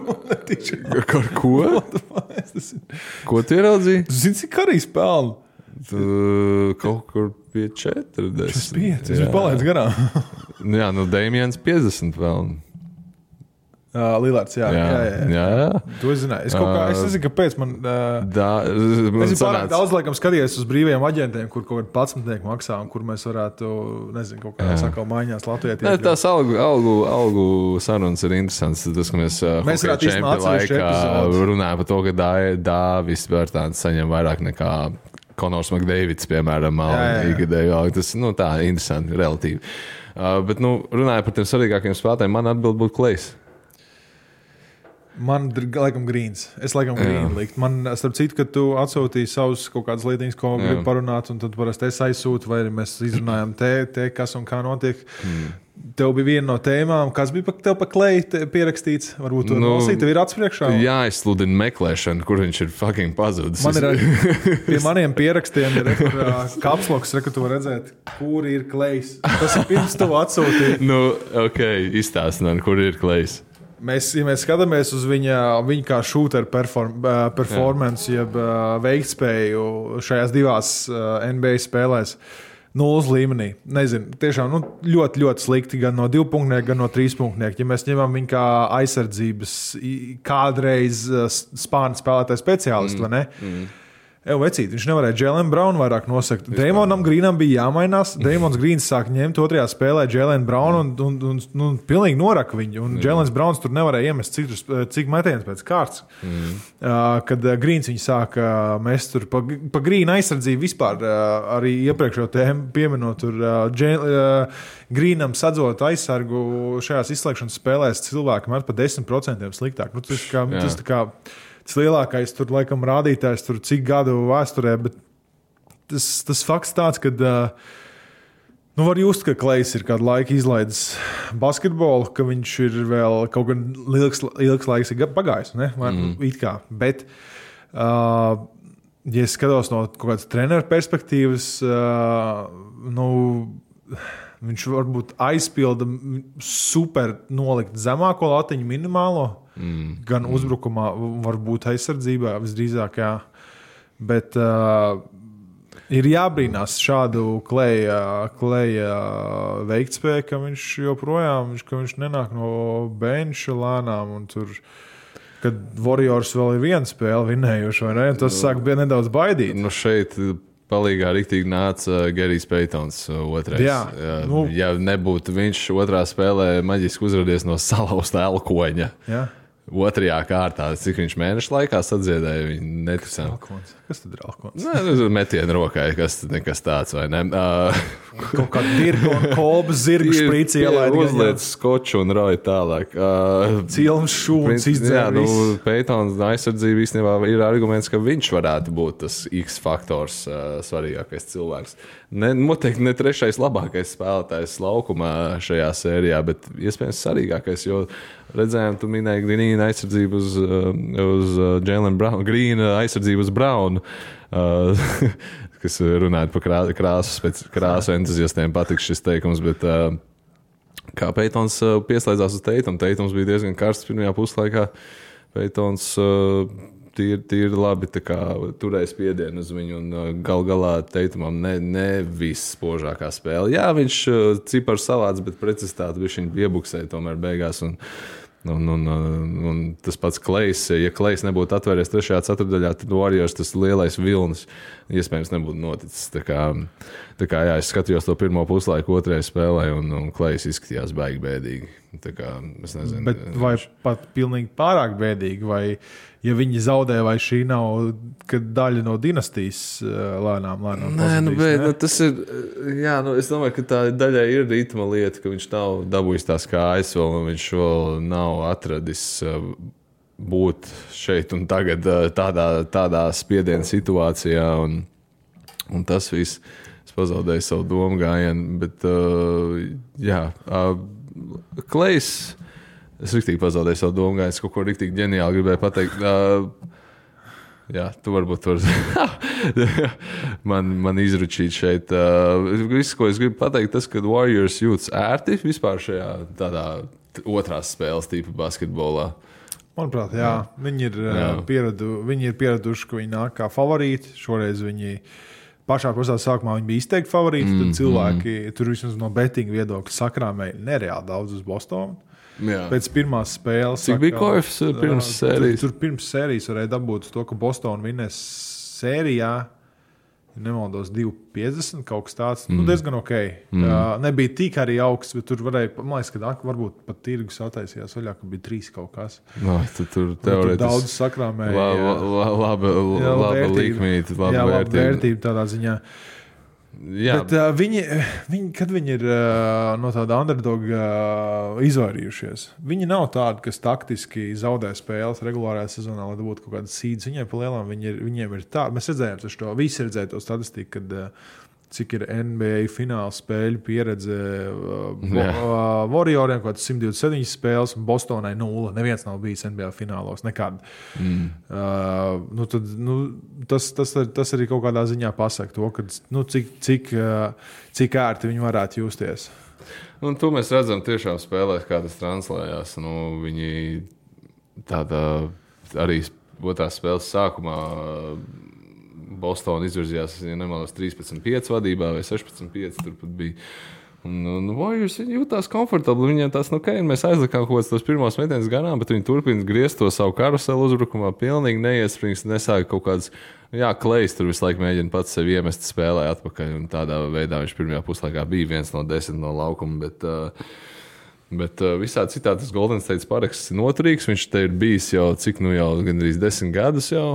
Par ko? Ko tu ieraudzīji? Tu zini, cik karīs pelnu? Kaut kur pie 40. Tas 5, viņš palaidz garām. Jā, Damians 50 pelnu. Lillards, jā. To es zināju. Es nezinu, kāpēc man... Es pārāk daudz, laikam, skatījies uz brīvajiem aģentiem, kur kaut kādi 11 maksā, un kur mēs varētu, nezinu, kaut kādā sakau maiņās Latvijā. Tās algu sarunas ir interesants. Tas, ka mēs čempi laikā runājam par to, ka Dāvis Bērtāns saņem vairāk nekā Konors McDavids, piemēram, ikgadēju. Tas, tā, interesanti, relatīvi. Bet, runājot par tiem svarīgākiem spēlētājiem, man atbild būtu Klejs. Man laikam Greens. Es laikam Greenu likt. Man, starp citu, kad tu atsūtīji savus kaut kādas lietiņas, ko gribi parunāt, un tad parasti es aizsūtu, vai arī mēs izrunājam te kas un kā notiek. Tev bija viena no tēmām, kas bija tev pa Kleju pierakstīts. Varbūt to nolasīt, tev ir atspriekšā. Jā, es sludinu meklēšanu, kur viņš ir fucking pazudis. Man ir pie maniem pierakstiem ir kapsloks, ka tu var redzēt, kur ir Klejs. Tas ir pirms tev atsūtīt. Izstāstināt, kur ir Klejs. Ja mēs skatāmies uz viņa kā shooter performance, jeb veiktspēju šajās divās NBA spēlēs, 0 līmenī. Nezinu, tiešām ļoti, ļoti slikti gan no 2 punktnieku, gan no 3 punktnieku. Ja mēs ņemam viņu kā aizsardzības kādreiz spārnu spēlētāju speciālistu, vai ne? Vecīt, viņš nevarēja Jalen Brown vairāk nosakt. Draymonam Greenam bija jāmainās. Draymons Greens sāk ņemt otrajā spēlē Jalen Brown un pilnīgi noraka viņu. Un Jalens Browns tur nevarēja iemest cik metienus pēc kārtas. Kad Greens viņu sāka mest tur pa Greena aizsardzību vispār arī iepriekšējo tēmu pieminot tur Greenam sadzot aizsargu šajās izslēgšanas spēlēs cilvēki met pa 10% sliktāk. Tas tā kā tas lielākais tur, laikam, rādītājs tur cik gadu vēsturē, bet tas fakts tāds, ka var just, ka Klejs ir kādu laiku izlaidis basketbolu, ka viņš ir vēl kaut gan ilgs laiks pagājis, ne? It kā. Bet, ja es skatos no kaut kādas treneru perspektīvas, viņš varbūt aizpilda super nolikt zemāko latiņu minimālo, gan uzbrukumā, varbūt aizsardzībā, visdrīzāk, jā. Bet ir jābrīnās šādu Kleja veiktspēju, ka viņš joprojām, ka viņš nenāk no benča lēnām un tur, kad Warriors vēl ir viena spēle vinējuši, vai ne? Tas sāk bija nedaudz baidīt. Šeit palīgā riktīgi nāca Gerijs Peitons otrais. Ja nebūtu viņš otrā spēlē maģiski uzradies no salauzta elkoņa. Jā. Otrajā kārtā, cik viņš mēnešu laikā sadziedēja, viņi neticām. Kas tad ir elkons? Metienu rokai, nekas tāds, vai ne? Kaut kāda dirga un kolbas zirgu šprīci ielaid. Uzliec skoču un roja tālāk. Cilms šūns izdzēr viss. Peitons aizsardzība īstenībā ir arguments, ka viņš varētu būt tas X faktors svarīgākais cilvēks. Noteikti ne trešais labākais spēlētājs laukumā šajā sērijā, bet iespējams svarīgākais, jo redzējām, tu minēji Greena aizsardzību uz Jalen Brown, Greena aizsardzību uz Brown, kas runājot par krāsu entuziastiem patiks šis teikums, bet kā Peitons pieslēdzās uz Teitums bija diezgan karsts pirmajā puslaikā. Peitons tīri labi turēja spiedienu uz viņu un galā Teitumam ne viss spožākā spēle. Jā, viņš ciparu savāds, bet precizitāti viņš iebuksēja tomēr beigās un Un tas pats Klejs, ja Klejs nebūtu atvēries 3. ceturtdaļā, tad Warriors tas lielais vilnis iespējams nebūtu noticis. Tā kā jā, es skatījos to pirmo puslaiku 2. spēlē, un Klejs izskatījās baigi bēdīgi. Tā kā, es nezinu. Bet vai pat pilnīgi pārāk bēdīgi, vai ja viņi zaudē, vai šī nav daļa no dinastijas lēnām Nē, tas ir, es domāju, ka tā daļai ir ritma lieta, ka viņš nav dabūjis tās kājas vēl, un viņš vēl nav atradis būt šeit un tagad tādā spiediena situācijā, un tas viss, es pazaudēju savu domu gājienu, bet Klejs, es riktīgi pazaudēju savu domu gājienu, es kaut ko riktīgi ģeniāli gribēju pateikt. Jā, tu varbūt man izručīt šeit. Viss, ko es gribu pateikt, tas, ka Warriors jūtas ērti vispār šajā tādā otrās spēles tipa basketbolā. Manuprāt, jā. Viņi ir pieraduši, ka viņi nāk kā favorīti. Šoreiz viņi pašā sākumā viņi bija izteikti favorīti. Tad cilvēki tur vismaz no bettinga viedokļa sakrāmēja nereāli daudz uz Bostonu. Jā. Pēc pirmās spēles. Cik bija koefs pirms sērijas? Tur pirms sērijas varēja dabūt to, ka Bostonu vinnēs sērijā, ja nemaldos, 2,50 kaut kas tāds. Diezgan ok. Nebija tik arī augsts, bet tur varēja, man liekas, ka varbūt pat tirgus attaisījās vaļā, ka bija 3 kaut kas. Tur teorētiski daudz sakrāmēja. Laba likmīte, laba vērtība tādā ziņā. Jā. Bet viņi, kad viņi ir no tāda underdoga izvairījušies, viņi nav tādi, kas taktiski zaudē spēles regulārajā sezonā, lai dabūtu kaut kādas sīdas. Viņiem pa lielām viņiem ir tā. Mēs redzējām to, visi redzēja to statistiku, kad cik ir NBA fināla spēļu pieredze Warrioriem, kaut kāds 127 spēles, un Bostonai 0. Neviens nav bijis NBA finālos, nekad. Tas arī kaut kādā ziņā pasaka to, ka, cik ērti viņi varētu justies. Un to mēs redzam tiešām spēlēs, kā tas translējās. Viņi tāda arī otrās spēles sākumā Bostona izvirzījās, ja nemaldos, 13-5 vadībā vai 16-5 tur pat bija. Un Warriors jūtās komfortabli. Viņiem tās, mēs aizlikām kaut kāds tos pirmos metienus garām, bet viņi turpina griezt to savu karuselu uzbrukumā, pilnīgi neiesprings, nesāka kaut kāds, Klejs tur visu laiku mēģina pats sevi iemest spēlē atpakaļ, un tādā veidā viņš pirmajā puslaikā bija 1 no 10 no laukuma, bet visādi citādi tas Golden State paraksts ir noturīgs, viņš te ir bijis jau gandrīz 10 gadus jau.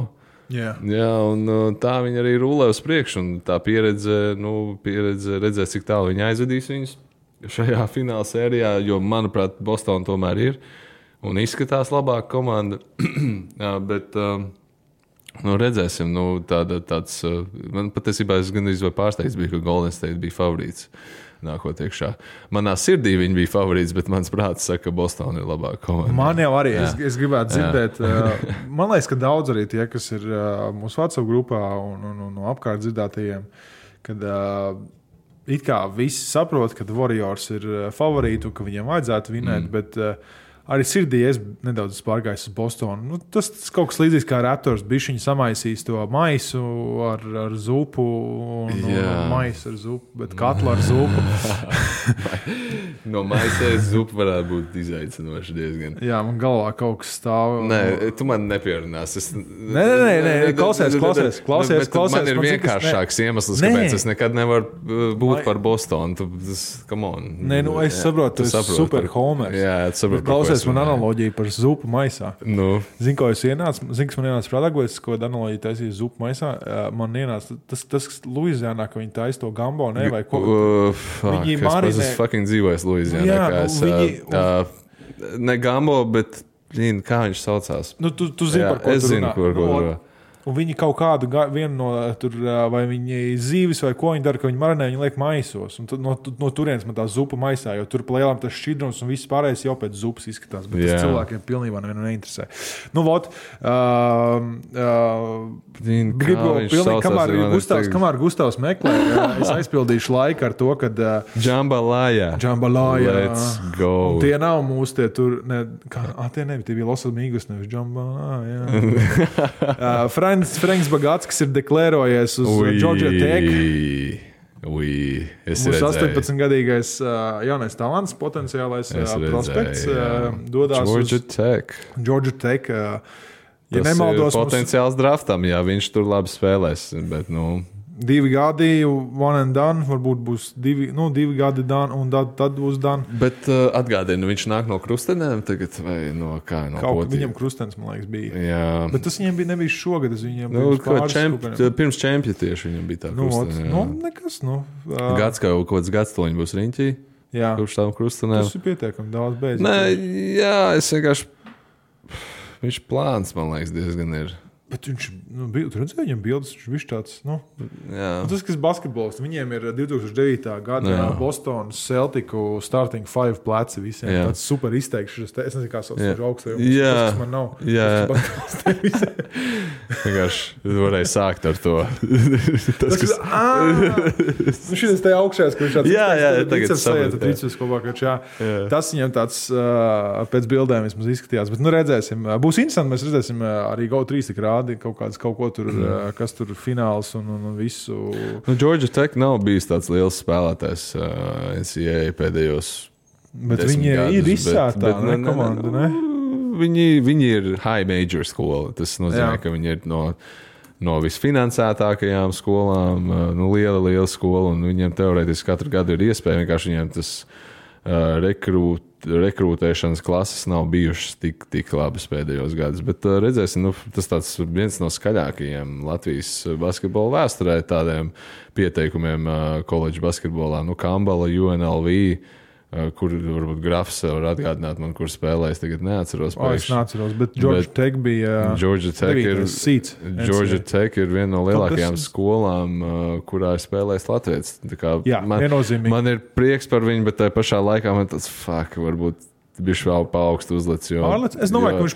Jā, un tā viņi arī rulē uz priekšu, un tā pieredze redzēs, cik tālu viņi aizvedīs viņus šajā fināla sērijā, jo, manuprāt, Bostona tomēr ir un izskatās labāka komanda, bet redzēsim, tāds, man patiesībā es gandrīz vai pārsteigts bija, ka Golden State bija favorīts. Nākot iekšā. Manā sirdī viņi bija favorīts, bet mans prāts saka, ka Bostona ir labāka komanda. Man jau arī, es gribētu dzirdēt, man liekas, ka daudz arī tie, kas ir mūsu WhatsApp grupā un no apkārt dzirdētajiem, kad it kā visi saprot, ka Warriors ir favorīti un ka viņiem vajadzētu vinēt, bet arī sirdī es nedaudz pārgājis uz Bostonu. Tas kaut kas līdzīgs kā Raptors. Bišķiņi samaisīs to maisu ar zupu un maisu ar zupu, bet katlu ar zupu. No maisēs zupu varētu būt izaicinoši diezgan. Jā, man galvā kaut kas stāv. Nē, tu man nepierunās. Nē, klausies. Man ir vienkāršāks iemesls, kāpēc es nekad nevaru būt par Bostonu. Come on. Nē, es saprotu, tu esi super homers. Jā, tu saprotu. Man analoģija par zupu maisā. Zini, ko es ienācu? Zini, kas man ienāca prātā, ko es analoģiju taisīju zupu maisā? Man ienāca tas Luizijānā, ka viņi taisa to gambo, ne? Vai ko? Viņi marinē. Es fucking dzīvoju Luizijānā. Ne gambo, bet kā viņš saucās? Tu zini, par ko tu runā. Es zinu, par ko runā. Un viņi kaut kādu vienu no tur, vai viņi zīves vai ko viņi dara, ka viņi marinē, viņi liek maisos. Un no turienes man tā zupa maisā, jo tur plēlām tas šķidrums un viss pārējais jau pēc zupas izskatās. Bet tas cilvēkiem pilnībā nevienu neinteresē. Kamēr Gustavs meklē, es aizpildīšu laiku ar to, kad Jambalaya. Let's go. Un tie nav mūsu tie tur, tie bija Los Amigos, nevis Jambalaya. Franks Bagats, kas ir deklarējies uz Georgia Tech. Es Mūsu redzēju. 18-gadīgais jaunais talants, potenciālais prospekts dodās Georgia Tech. Ja Tas nemaldos, ir potenciāls draftam, ja viņš tur labi spēlēs. Bet, 2 gadi, one and done, varbūt būs 2 gadi done, un tad būs done. Bet atgādini, viņš nāk no Krustenēm tagad, vai no kā? No Kaut kā viņam Krustens, man liekas, bija. Jā. Bet tas viņam nebija šogad, tas viņam pirms čempja tieši viņam bija tā Krustene. Nekas, Gads kaut kāds gads to viņa būs riņķī. Jā. Kurš tām Krustenēm. Tas ir pietiekami daudz beidzot. Nē, jā, es vienkārši... Viņš plāns, man liekas, diezgan ir. Bet viņš, tu redzēji viņam bildes, viņš tāds, tas, kas basketbols, viņiem ir 2009. Gada Bostonas Celticu starting 5 pleci visiem. Jā. Tāds super izteikšs, es nezinu, kā sauc augstajums, tas man nav. Jā. Vienkārši varēja sākt ar to. Šitas te augšējās, ka viņš tāds tagad saprot. Tas viņam tāds pēc bildēm vismaz izskatījās, bet redzēsim. Būs interesanti, mēs redzēsim arī GO3 tik rādi kaut ko tur, kas tur fināls un visu. Georgia Tech nav bijis tāds liels spēlētājs NCAA pēdējos. Bet viņi ir izsētā komanda, ne? Viņi ir high major skola. Tas nozīmē, ka viņi ir no visfinansētākajām skolām, liela skola, un viņiem teorētiski katru gadu ir iespēja, vienkārši viņiem tas rekrūtēšanas klases nav bijušas tik labas pēdējos gadus. Bet redzēsim, tas tāds viens no skaļākajiem Latvijas basketbola vēsturē tādiem pieteikumiem koledžu basketbolā. Kambala, UNLV, kur varbūt grafs var atgādināt man, kur spēlēs, tagad neatceros. Es neatceros, bet Georgia Tech bija Georgia Tech ir viena no lielākajām skolām, kurā ir spēlējis Latvijas. Viennozīmīgi. Man ir prieks par viņu, bet tajā pašā laikā man tāds, varbūt bišķi vēl pa augstu uzlec. Es domāju, ka viņš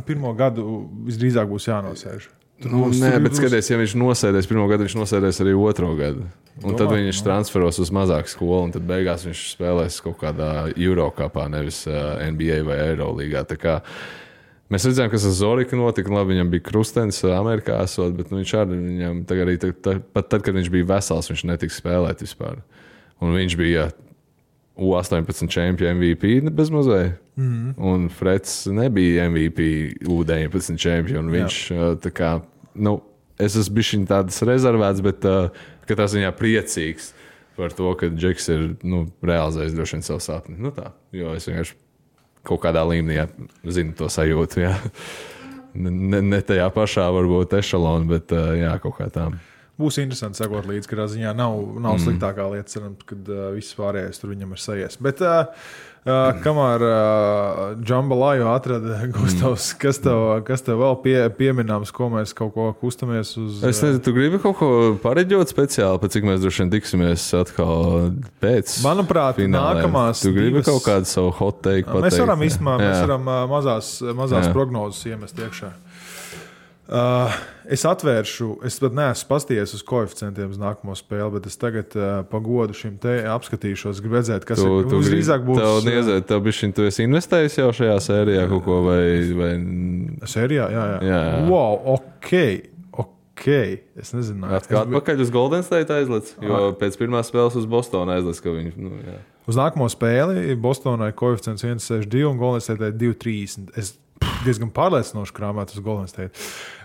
pirmo gadu visdrīzāk būs jānosēž. Nē, bet skaties, ja viņš nosēdēs pirmo gadu, viņš nosēdēs arī otro gadu. Un tad viņš transferos uz mazāku skolu, un tad beigās viņš spēlēs kaut kādā Eurocupā, nevis NBA vai Eurolīgā. Tā kā mēs redzējām, kas ar Zoriku notika. Labi, viņam bija Krustens Amerikā esot, bet viņš arī pat tad, kad viņš bija vesels, viņš netika spēlēt vispār. Un viņš bija U18 čempionu MVP bezmazliet. Un Freds nebija MVP U19 čempionu. Viņš tā kā, es esmu bišķiņ tādas rezervēts, bet katrā ziņā priecīgs par to, ka Džeks ir realizējis droši vien savu sapni. Tā, jo es vienkārši kaut kādā līmenī zinu to sajūtu. Jā. Ne tajā pašā varbūt ešalona, bet kaut kā tā. Būs interesanti sekot līdzi, ka ziņā nav sliktākā lieta, cerams, kad viss pārējais tur viņam ir sajies. Bet kamēr Džambalāju atrada Gustavs, kas tev vēl pieminams, ko mēs kaut ko kustamies uz? Es nezinu, tu gribi kaut ko pareģot speciāli, pēc cik mēs droši vien tiksimies atkal pēc manuprāt, finālēm. Nākamās tu gribi kaut kādu savu hot take pateikt? Mēs varam mazās prognozes iemest iekšā. Es atvēršu, es pat neesmu pastījies uz koeficientiem uz nākamo spēli, bet es tagad pagodu šim te apskatīšos, gribu redzēt, kas visdrīzāk būs. Tev bišķiņ, tu esi investējis jau šajā sērijā kaut ko vai... Sērijā? Jā. Wow, ok. Es nezinu. Atpakaļ uz Golden State aizlec, jo pēc pirmās spēles uz Bostonu aizlec, ka viņi... Uz nākamo spēli Bostonai koeficients 1,62 un Golden State 2,30. Es diezgan pārliecinoši krāmēt uz Golden State.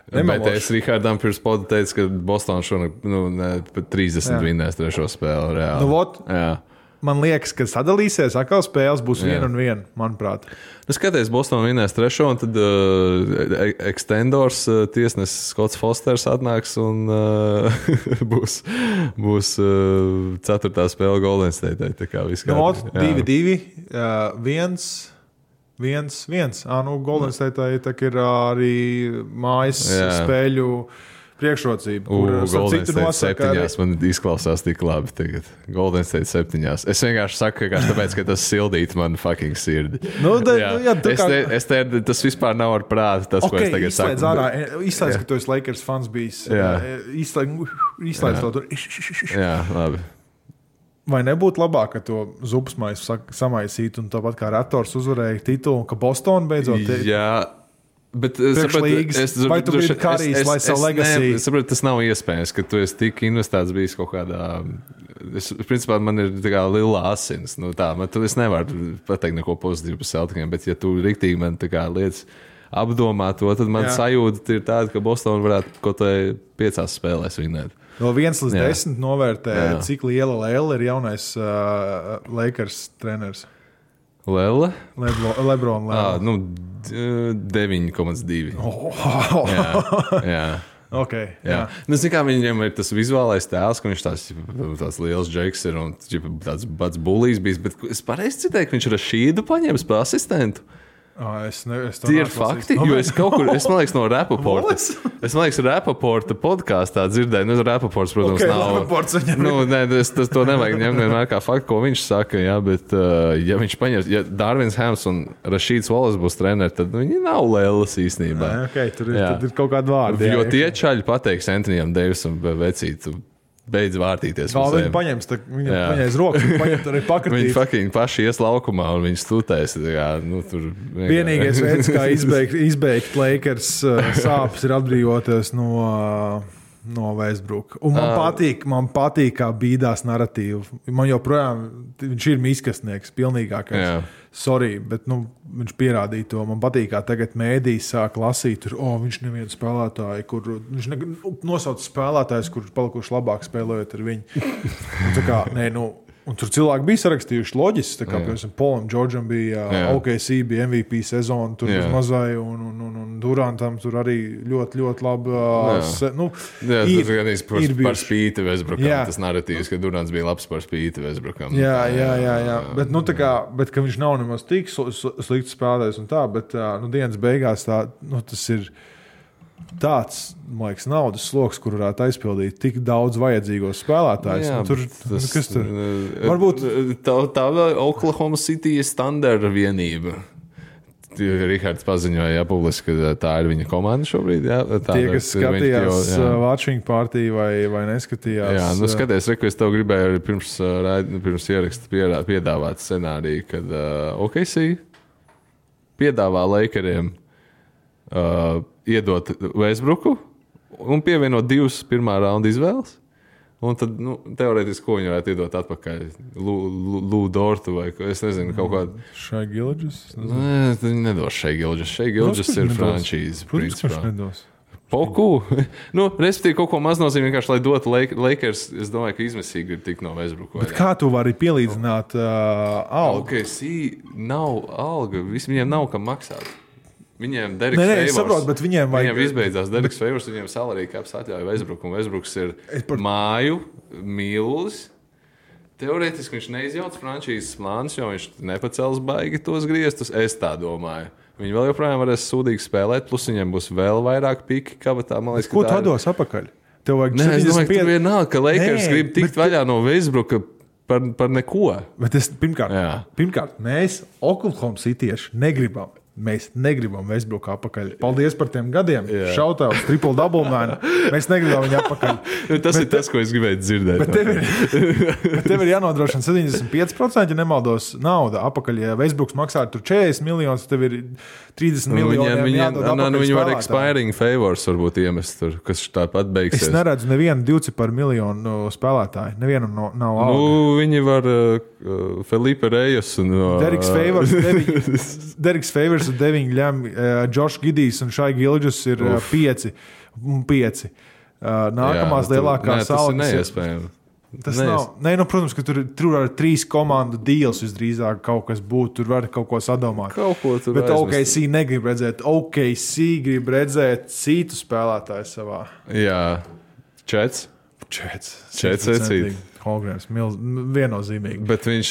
Bet es Rihardam pirms poda teicu, ka Boston šonakt pat 30 vinnēs trešo spēli reāli. Man liekas, ka sadalīsies, atkal spēles būs 1-1, manuprāt. Skaties, Boston vinnēs trešo, un tad extendors tiesnesis Skots Fosters atnāks un būs ceturtā spēle Golden State. Tā kā viss kārtībā. 2-2, 1-1. Golden State ir arī mājas spēļu priekšrocība. Golden State 7. Man izklausās tik labi tagad. Golden State 7. Es vienkārši saku, tāpēc, ka tas sildīt man fucking sirdi. Tas vispār nav ar prātu, tas, ko es tagad saku. Izslēdz, ka tu esi Lakers fans bijis. Izslēdz to tur. Jā, labi. Vai nebūtu labāk, ka to zupsmaisu samaisītu un tāpat kā Raptors uzvarēja titulu, ka Boston beidzot... Jā, bet vai tu biji Karijs, lai savu legacy? Es saprotu, tas nav iespējams, ka tu esi tik investēts bijis kaut kādā principā man ir tā kā lila asins. Nu, tā, es nevaru pateikt neko pozitīvu par Celticiem, bet ja tu riktīgi man tā kā lietas apdomā to, tad man sajūta ir tāda, ka Boston varētu kaut vai 5 spēlēs vinēt. No 1 līdz 10 novērtē, cik liela Lēla ir jaunais Lakers treneris. Lēla? Lebron Lēla. 9,2. Jā. Okay, jā. Nu, kā viņam ir tas vizuālais tēls, ka viņš tāds liels džeks ir un tāds pats bullijs bijis, bet es pareizi citēju, ka viņš Rašīdu paņēmis par asistentu. Tie ir fakti, jo es kaut kur, man liekas, no Rapaporta. Es man liekas, Rapaporta podkāstā dzirdēju. Nu, Rapaports, protams, nav. Rapaports viņam to nevajag ņemt vienmēr kā faktu, ko viņš saka, jā, bet ja viņš paņems, ja Darvins Hams un Rašīds Wallace būs treneri, tad viņi nav lēlas īstenībā. Tur ir kaut kāda vārda. Jo tie čaļi pateiks Antonijam Davisam vecītu. Beidz vārtīties. Viņi paņems, viņam paņēs rokas, viņi paņemt arī pakratīt. Viņi paši ies laukumā un viņi stutēs. Vienīgais veids, kā izbeigt Lakers sāpes, ir atbrīvoties no Westbrook. Un man patīk kā bīdās narratīvu. Man joprojām, viņš ir miskastnieks, pilnīgākais. Sorry, bet viņš pierādīja to. Man patīk, kā tagad mēdīs sāk lasīt, viņš nevienu spēlētāju, viņš nosauc spēlētājus, kurš palikuši labāk spēlējot ar viņu. Un tur cilvēki bija sarakstījuši loģiski, tā kā, piemēram, Polam Džordžam bija OKC, bija MVP sezona, tur uz mazai, un Durantam tur arī ļoti, ļoti labi. Ir par spīti Westbrookam, tas narratīvs, ka Durants bija labs par spīti Westbrookam. Jā. Bet ka viņš nav nemaz tik slikts spēlētājs un tā, bet dienas beigās tas ir tāds, man liekas, naudas sloks, kur varētu aizpildīt tik daudz vajadzīgos spēlētājus. Kas tur? Varbūt tā Oklahoma City standarta vienība. Rihards paziņoja publiski, ka tā ir viņa komanda šobrīd. Tie, kas skatījās watching party vai neskatījās. Jā, skaties, es tev gribēju pirms ieraksta piedāvāt scenāriju, kad OKC piedāvā Lakeriem iedot Westbrooku un pievienot 2 pirmā raunda izvēles. Un tad, teorētiski, ko viņi varētu iedot atpakaļ? Lou Dortu vai, es nezinu, kaut kādu. Shai Gilgeous? Nē, viņi nedos Shai Gilgeous. Shai Gilgeous ir frančīze. Protams, nedos. Poku. Respektīvi, kaut ko maznozīmīgi vienkārši, lai dotu Lakers, es domāju, ka izmisīgi ir tik no Westbrooku. Bet kā tu vari pielīdzināt algu? OKC nav alga, viņiem nav kam maksāt. Viņiem Deriks Favors. Es saprotu, bet viņiem vajag. Viņiem izbeidzās Deriks Favors, viņiem salary caps atļauja Westbrook, un Westbrooks ir māju mīlulis. Teorētiski viņš neizjauc frančīzes plānus, jo viņš nepacels baigi tos griestus. Es tā domāju. Viņi vēl joprojām varēs sūdīgi spēlēt, plus viņiem būs vēl vairāk piki kabatā. Man liekas, ko tu dos apakaļ? Tev vajag 75. Es domāju, ka vienalga, ka Lakers grib tikt vaļā no Westbrooka par neko. Bet pirmkārt, mēs Oklahoma Citieši negribam. Mēs negribam Westbrook apakaļ. Paldies par tiem gadiem. Šautauts, triple double man. Mēs negribam viņu apakaļ. Tas ir tas, ko es gribēju dzirdēt. Bet tev ir jānodrošina 75%, ja nemaldos, nauda apakaļ. Ja Westbrooks maksā tur 40 miljonus, tev ir 30 miljoni jādod apakaļ. Viņi var expiring favors varbūt iemest tur, kas tāpat beigsies. Es neredzu nevienu 2 miljonu spēlētāju. Nevienam nav alga. Viņi var Felipe Reyes un Deriks Favors 9 ļem, Josh Gidijs un Shai Gilgeous ir 5. Nākamās lielākās algas. Tas ir neiespējami. Tas nav. Protams, ka tur ar 3 komandu deals visdrīzāk kaut kas būtu. Tur var kaut ko sadomāt. Bet OKC negrib redzēt. OKC grib redzēt citu spēlētāju savā. Jā. Čets vecīt. Holgrams, viennozīmīgi. Bet viņš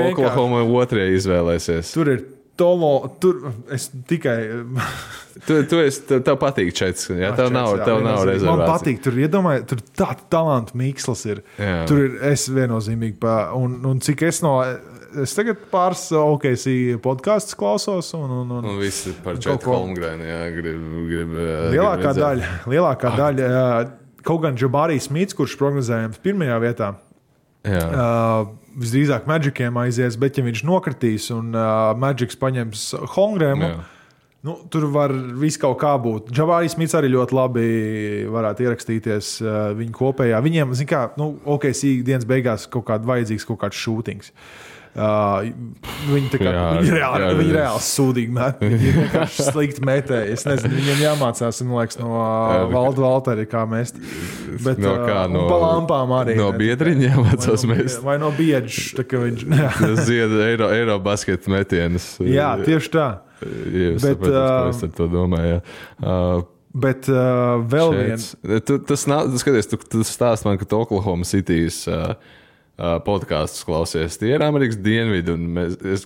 Oklahoma otrajā izvēlēsies. Tur ir tur es tikai. Tev patīk Čets, jā? Tev nav rezervācija. Man patīk, tur iedomāju, tur tā talantu miksls ir. Jā. Tur ir es viennozīmīgi un cik es tagad pāris OKC podcasts klausos un visi par Četu Holmgrenu, jā, grib lielākā daļa, kaut gan Jabari Smits, kurš prognozējams pirmajā vietā. Visdrīzāk Magiciem aizies, bet ja viņš nokritīs un Magics paņems Holmgrenu, Tur var viss kaut kā būt. Džabārijs Smits arī ļoti labi varētu ierakstīties viņu kopējā. Viņiem, zin kā, OKC dienas beigās kaut kāds šūtings. Viņi reāli sūdīgi met. Viņi ir vienkārši slikti metēji. Es nezinu, viņiem jāmācās, man liekas, no Valda Valteri, kā mest. Bet pa lampām arī. No biedriņa jāmācās mest. Vai no biedža. Tas zied Eiro basketu metienus. Jā, tieši tā. Es saprotu, es ar to domāju. Bet vēl viens. Tu stāst man, ka Oklahoma City's podkastus klausies. Tie ir Amerikas dienvidi, un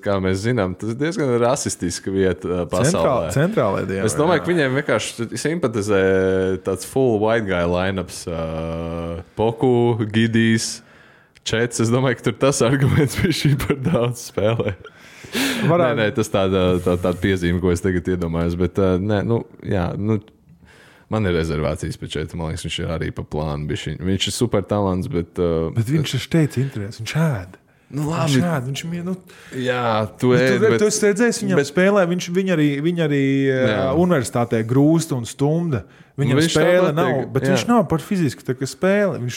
kā mēs zinām, tas ir diezgan rasistiska vieta pasaulē. Centrālajā dienvidā. Es domāju, ka viņiem vienkārši simpatizē tāds full white guy lineups. Poku, Gidijs, Čets. Es domāju, ka tur tas arguments bija šī par daudz spēlē. Nē, tas tāda piezīme, ko es tagad iedomājos, bet man ir rezervācijas pēc Četa. Man liekas, viņš ir arī pa plānu. Viņš ir super talants, bet viņš ir teicis interesi, viņš ēd. Jā, tu ēd. Tu esi redzējis viņam spēlē, viņa arī universitātē grūst un stumda. Viņam spēle nav, bet viņš nav par fiziski tā, ka spēle. Viņš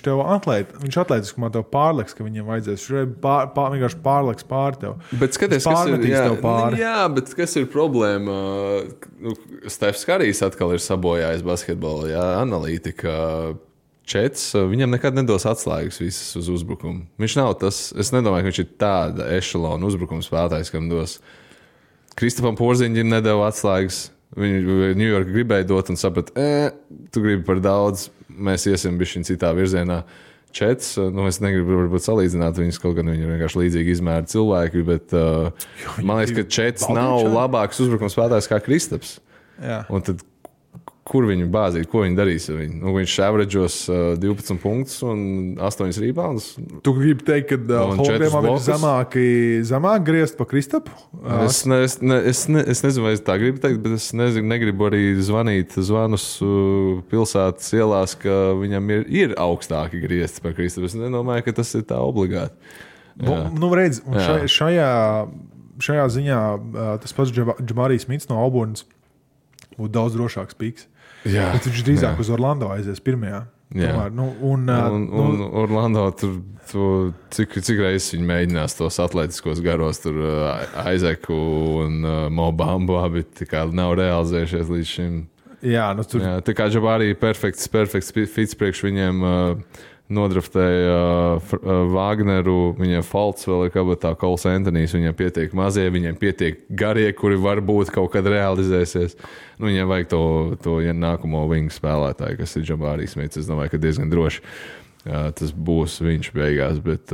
atlētiski man tev pārliks, ka viņam vajadzēs. Viņš vienkārši pārliks pār tev. Bet skaties, kas ir problēma? Stefs Karijs atkal ir sabojājis basketbolu, analītika. Čets, viņam nekad nedos atslēgas visas uz uzbrukumu. Viņš nav tas, es nedomāju, ka viņš ir tāda ešalona uzbrukuma spēlētājs, kam dos. Kristofam Porziņģim nedeva atslēgas. Viņu New York gribēja dot un saprat, tu gribi par daudz, mēs iesim bišķiņ citā virzienā. Čets, es negribu varbūt salīdzināt viņus, kaut gan viņi ir vienkārši līdzīgi izmēri cilvēki, bet man liekas, ka Čets nav labāks uzbrukuma spēlētājs kā Kristaps. Jā. Un tad kur viņu bāzīt, ko viņi darīs ar viņu? Viņš averaģos 12 punktus un 8 rebounds. Tu gribi teikt, ka Holmgrenam ir zemāk griezt pa Kristapu? Es nezinu, vai es tā gribu teikt, bet es negribu arī zvanīt zvanus pilsētas ielās, ka viņam ir augstāki griezti par Kristapu. Es nedomāju, ka tas ir tā obligāti. Redz, šajā ziņā tas pats Džamarijs Smits no Auburnas būtu daudz drošāks pīks. Bet viņš drīzāk uz Orlando aizies pirmajā. Tomēr, un Orlando tur cik reizes viņi mēģinās tos atletiskos garos, tur Aizeku un Mo Bambu abi nav realizējušies līdz šim. Tā kā Džabārī perfekts fits priekš viņiem nodraftēja Wagneru, viņiem Falts vēl ir kabatā, Kols Antonijs, viņiem pietiek mazie, viņiem pietiek garie, kuri varbūt kaut kad realizēsies. Viņiem vajag to nākamo wingu spēlētāju, kas ir Džabārī Smits. Es domāju, ka diezgan droši tas būs viņš beigās, bet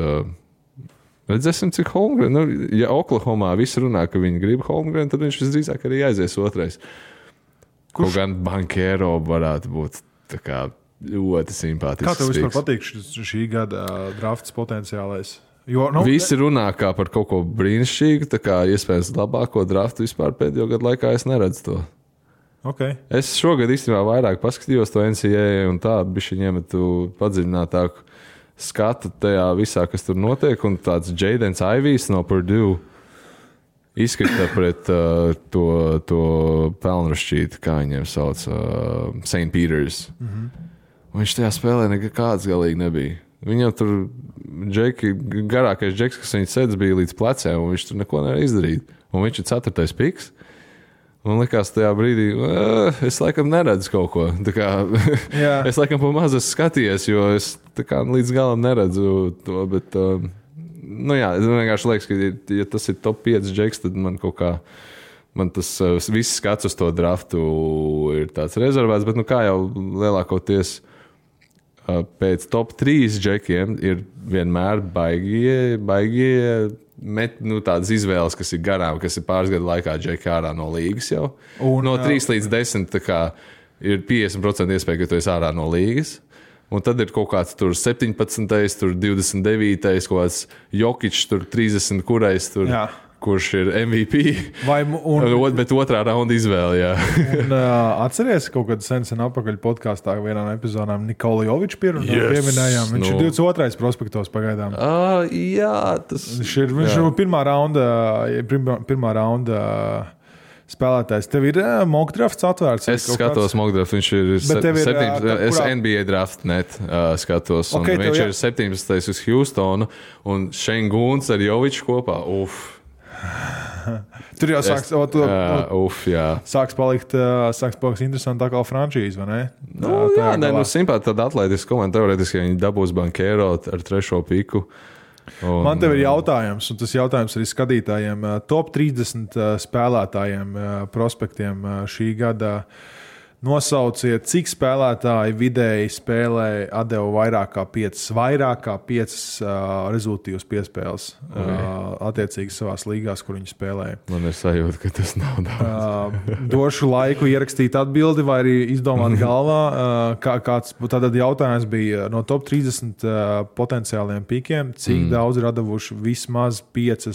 redzēsim, cik Holmgren. Ja Oklahomā visi runā, ka viņi grib Holmgren, tad viņš visdrīzāk arī aizies otrais. Kaut gan Bankero varētu būt tā kā ļoti simpātisks. Kā tev vispār patīk šī gada drafts potenciālais? Visi runā kā par kaut ko brīnišķīgu, tā kā iespējams labāko draftu vispār pēdējo gadu laikā es neredzu to. Okay. Es šogad īstenībā vairāk paskatījos to NCAA un tā bišķiņ iemetu padziļinātāku skatu tajā visā, kas tur notiek, un tāds Jadens Ivijs no Purdue izkrita pret to pelnrašķīti, kā viņiem sauc, St. Peters. Viņš tajā spēlē nekāds galīgi nebija. Viņam tur garākais džeks, kas viņa sēdz, bija līdz plecēm, un viņš tur neko nevar izdarīt. Un viņš ir 4. piks. Un likās tajā brīdī, es laikam neredzu kaut ko. Es laikam pa maz skatījies, jo es līdz galam neredzu to, bet es vienkārši liekas, ka ja tas ir top 5 džeks, tad man kaut kā tas viss skats uz to draftu ir tāds rezervēts, bet kā jau lielākoties pēc top 3 džekiem ir vienmēr baigie tādas izvēles, kas ir garām, kas ir pāris gadu laikā džeki ārā no līgas jau. No 3 līdz 10 ir 50% iespēja, ka tu esi ārā no līgas. Un tad ir kaut kāds tur 17, tur 29, kaut kāds Jokičs, tur 30, kurš ir MVP. Bet otrā raunda izvēle, jā. Un atceries kaut kad sen apakaļ podkāstā vienā no epizodām Nikola Jovičs pieminējām. Viņš ir 22. prospektos pagaidām. Jā, tas... Viņš ir pirmā raunda spēlētājs. Tev ir mock drafts atvērts? Es skatos mock draft, viņš ir 17. Es NBA draft net skatos. Okay, viņš ir 17. uz Houstonu un Shane Goons ar Joviču kopā. Tur jau sāks palikt interesanti tā kā frančīze, vai ne? Simpāti tāda atletiska komanda. Teorētiski, ja viņi dabūs Bankero ar 3. piku. Man tev ir jautājums, un tas jautājums arī skatītājiem. Top 30 spēlētājiem, prospektiem šī gada nosauciet, cik spēlētāji vidēji spēlē atdeva vairāk kā 5 rezultīvas piespēles attiecīgi savās līgās, kur viņi spēlēja. Man ir sajūta, ka tas nav daudz. Došu laiku ierakstīt atbildi vai arī izdomāt galvā. Kāds tātad jautājums bija no top 30 potenciāliem pikiem, cik daudz ir atdevuši vismaz 5,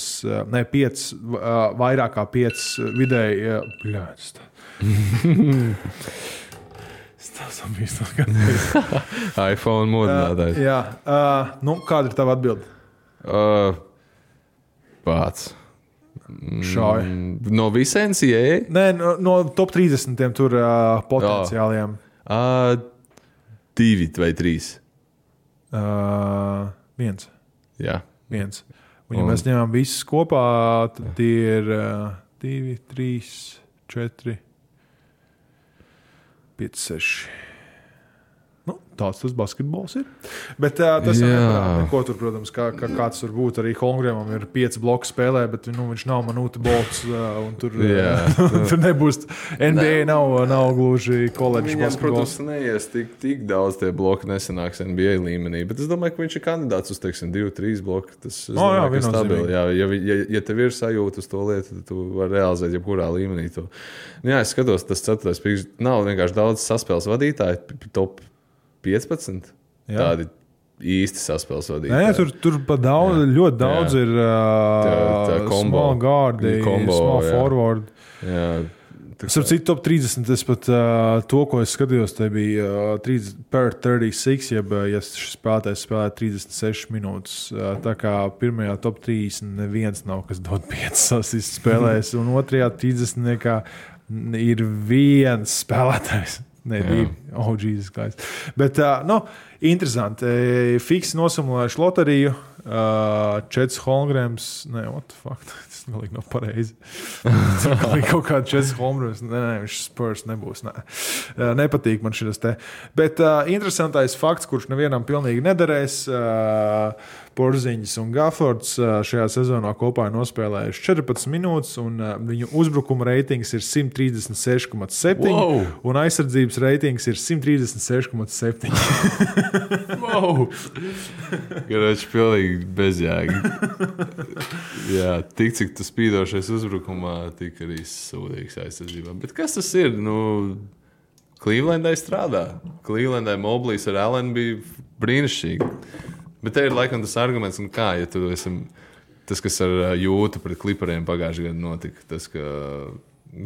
vairāk kā 5 vidēji. iPhone modinātājs. Jā. Kāda ir tava atbilde? Pats. Šauj. No visiem NCAA? Nē, no top 30 tur potenciāliem. 2 vai 3? 1. Jā. 1. Un ja mēs ņemam visus kopā, tad tie ir 2, 3, 4... 5, 6. Tāds tas basketbols ir. Bet tas jau neko tur, protams, kāds tur būtu. Arī Holmgrenam ir 5 bloku spēlē, bet viņš nav Manūta Bolts. Tur nebūs. NBA nav gluži koledžas basketbols. Protams, neies tik daudz tie bloki nesanāks NBA līmenī. Bet es domāju, ka viņš ir kandidāts uz, 2-3 bloku. Tas ir stabili. Ja tev ir sajūta uz to lietu, tad tu vari realizēt jebkurā līmenī to. Es skatos, tas 4. piks nav vienkārši daudz saspēles vadītāji, top 15. Tādi īsti saspēles vadītāji. Nē, tur pa daudz, ļoti daudz ir small guardi, small forward. Starp citu, top 30, es pat to, ko es skatījos, te bija 36, ja šis spēlētājs spēlē 36 minūtes. Tā kā pirmajā top 30 neviens nav, kas dod 5 asistus spēlēs, un otrajā 30 ir viens spēlētājs. Nē, 2. Oh, Jesus Christ. Bet, interesanti. Fiksi nosimulējuši loteriju. 4 Holmgrens. Nē, what the fuck? Tas galīgi nav pareizi. Galīgi kaut kāda 4 Holmgrens. Nē, viņš Spurs nebūs. Nepatīk man šis te. Bet interesantais fakts, kurš nevienam pilnīgi nederēs. Porziņš un Gaffords šajā sezonā kopā ir nospēlējuši 14 minūtes, un viņu uzbrukuma reitings ir 136,7, un aizsardzības reitings ir 136,7. Wow! Garāči pilnīgi bezjēgi. Jā, tik cik tu spīdošais uzbrukumā, tik arī sūdīgs aizsardzībā. Bet kas tas ir? Clevelandai strādā. Clevelandai Moblīs ar Allen bija brīnišķīgi. Bet te ir laikam tas arguments, ja tu esi tas, kas ar Jūtu pret Klipariem pagājušajā gadā notika. Tas, ka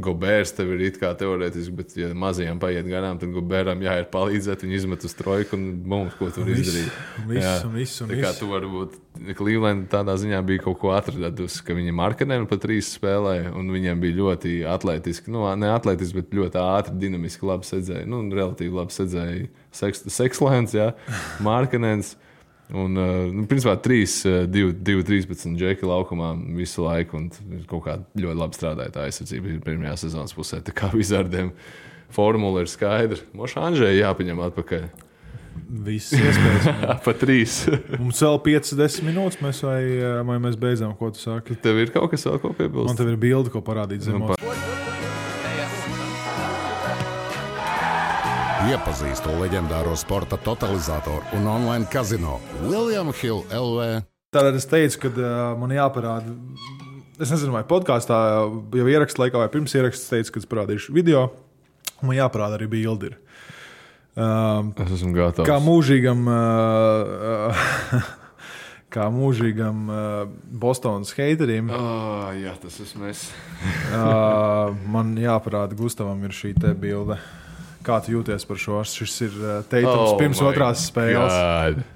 Gobērs tev ir it kā teorētiski, bet ja mazajām paiet garām, tad Gobēram jāiet palīdzēt, viņi izmet uz trojku un mums, ko tur izdarīt. Visu. Tā kā tu varbūt Cleveland tādā ziņā bija kaut ko atradusi, ka viņi Markanenu pa 3 spēlēja, un viņiem bija ļoti atletiski, ne atletiski, bet ļoti ātri, dinamiski labi sedzēja. Relatīvi labi sedzēja Sekslēns, Markanens. Un, principā 2-13 džeki laukumā visu laiku, un kaut kā ļoti labi strādāja tā aizsardzība pirmajā sezonas pusē. Tā kā Vizardiem formula ir skaidra. Moša Anžēja jāpaņem atpakaļ. Viss iespējas. Pa 3. Mums vēl 5-10 minūtes, vai mēs beidzām, ko tu saki? Tev ir kaut kas vēl ko piebilst? Man tev ir bildi, ko parādīt zemos. Iepazīstu leģendāro sporta totalizatoru un online kazino William Hill LV. Tātad es teicu, ka man jāparāda, es nezinu, vai podkāstā jau ieraksta laikā vai pirms ieraksta teicu, ka es parādīšu video, man jāparāda arī bildi. Es esmu gatavs. Kā mūžīgam Bostonas heiterim. Jā, tas esmu es. Man jāparāda Gustavam ir šī te bilde. Kā tu jūties par šo? Šis ir Teitums pirms otrās spēles.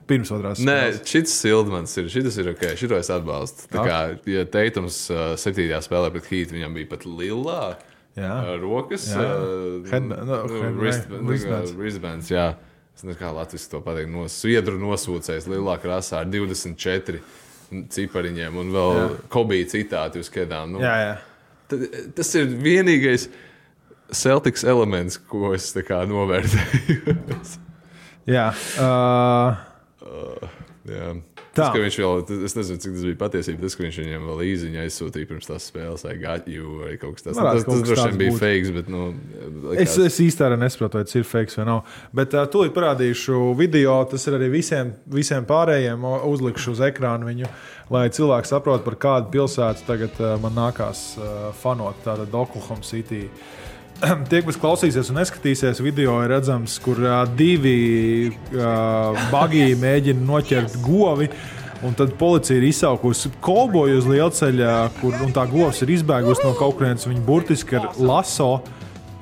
Pirms otrās spēles. Nē, šis Sildmans ir. Šitas ir ok. Šito es atbalstu. Tā kā, ja Teitums 7. spēlē pret Heat, viņam bija pat lilā rokas, wristbands, jā. Es nezinu, kā latviski to pateikt, sviedru nosūcējs lielā krāsā ar 24 cipariņiem un vēl Kobe citāti uz kedām. Tas ir vienīgais Celtics elements, ko es tā kā novērtēju. Jā. Tas, ka viņš vēl, es nezinu, cik tas bija patiesība, tas, ka viņš viņam vēl īziņu aizsūtīja pirms tās spēles, vai got you, vai kaut kas tāds. Tas droši vien bija fakes, bet, Es īsti arī nesaprotu, vai tas ir fakes vai nav. Bet tūlīt parādīšu video, tas ir arī visiem pārējiem, uzlikšu uz ekrānu viņu, lai cilvēki saprot, par kādu pilsētu tagad man nākās fanot, tātad Oklahoma City. Tie, kas klausīsies un neskatīsies, video ir redzams, kur divi bagī mēģina noķert govi, un tad policija ir izsaukusi kolboju uz lielceļa, un tā govs ir izbēgusi no kaut kurienes, viņa burtiski ar laso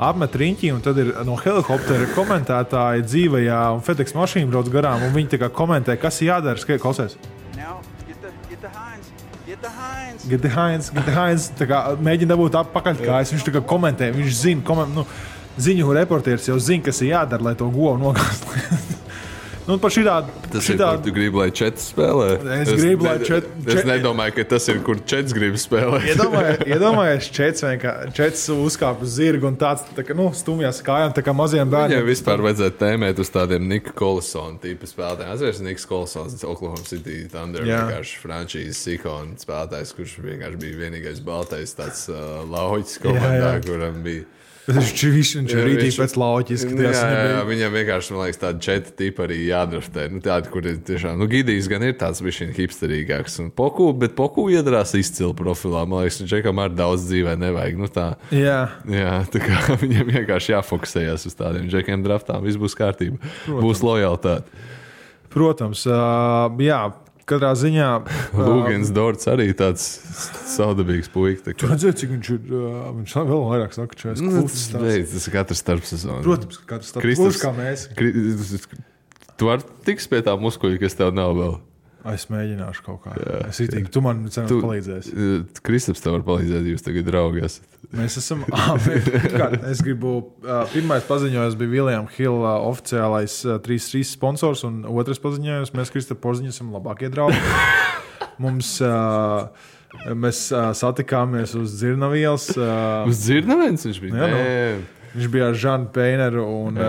apmet riņķi, un tad ir no helikoptera komentētāji dzīvajā, un FedEx mašīna brauc garām, un viņi tā kā komentē, kas ir jādara, klausies. Get the Heinz. Tā kā mēģina dabūt pakaļkājas. Viņš tā kā komentē, viņš zina, ziņu reportieris jau zina, kas ir jādara, lai to govu nogāzt. Par šitādu. Tas ir, kur tu gribi, lai čets spēlē? Es gribu, lai Es nedomāju, ka tas ir, kur čets grib spēlēt. Iedomājies, čets uzkāp uz zirgu un tāds stumjās kājām, tā kā maziem bērniem. Viņam vispār vajadzētu tēmēt uz tādiem Nika Kolisona tipa spēlētājiem. Atceries, Niks Kolisons, Oklahoma City Thunder, vienkārši frančīzes ikona spēlētājs, kurš vienkārši bija vienīgais baltais tāds lauķis komandā, kuram bija. Viņš ir rītīgi pēc lauķis. Viņam vienkārši, man liekas, tādi 4 tipi arī jādraftē. Tādi, kur ir tiešām, Gidijs gan ir tāds bišķiņ hipsterīgāks. Bet Poku iedarās izcili profilā. Man liekas, Džekam arī daudz dzīvē nevajag. Tā kā viņam vienkārši jāfokusējas uz tādiem Džekiem draftām. Viss būs kārtība. Būs lojalitāte. Protams, katrā ziņā. Lūgens Dorts arī tāds saudabīgs puika. Tu redzēji, cik viņš ir, viņš vēl vairāk saka, ka tas ir katrs starpsezonu. Protams, ka katrs starpsezonu. Kā mēs. Tu vari tiks pie tā muskuļa, kas tev nav vēl. Es mēģināšu kaut kā. Es itīgi, tu man cenas palīdzēsi. Kristaps tev var palīdzēt, jūs tagad draugi esat. Mēs esam, es gribu, pirmais paziņojums bija William Hill oficiālais 3-3 sponsors, un otrais paziņojums, mēs Kristapu Porziņu esam labākie draugi. Mēs satikāmies uz Dzirnavielas. Uz Dzirnavielas viņš bija? Viņš bija ar Žanu Peineru un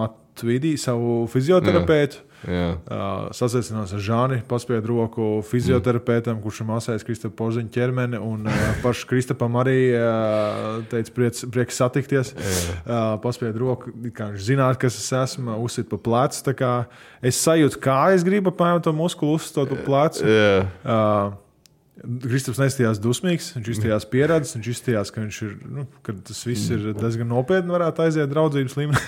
Matvidi, savu fizioterapeitu. Sasveicinās ar Žāni, paspied roku fizioterapeitam, kurš masējas Kristapu Porziņu ķermeni, un pašu Kristapam arī teica prieks satikties. Paspied roku, kā viņš zināt, kas es esmu, uzsit pa plecu. Tā kā es sajūtu, kā es gribu apmēram to muskulu uzstot pa plecu. Kristaps neizstījās dusmīgs, viņš izstījās pieredzes, viņš izstījās, ka viņš ir, ka tas viss ir diezgan nopietni, varētu aiziet draudzības līmenī.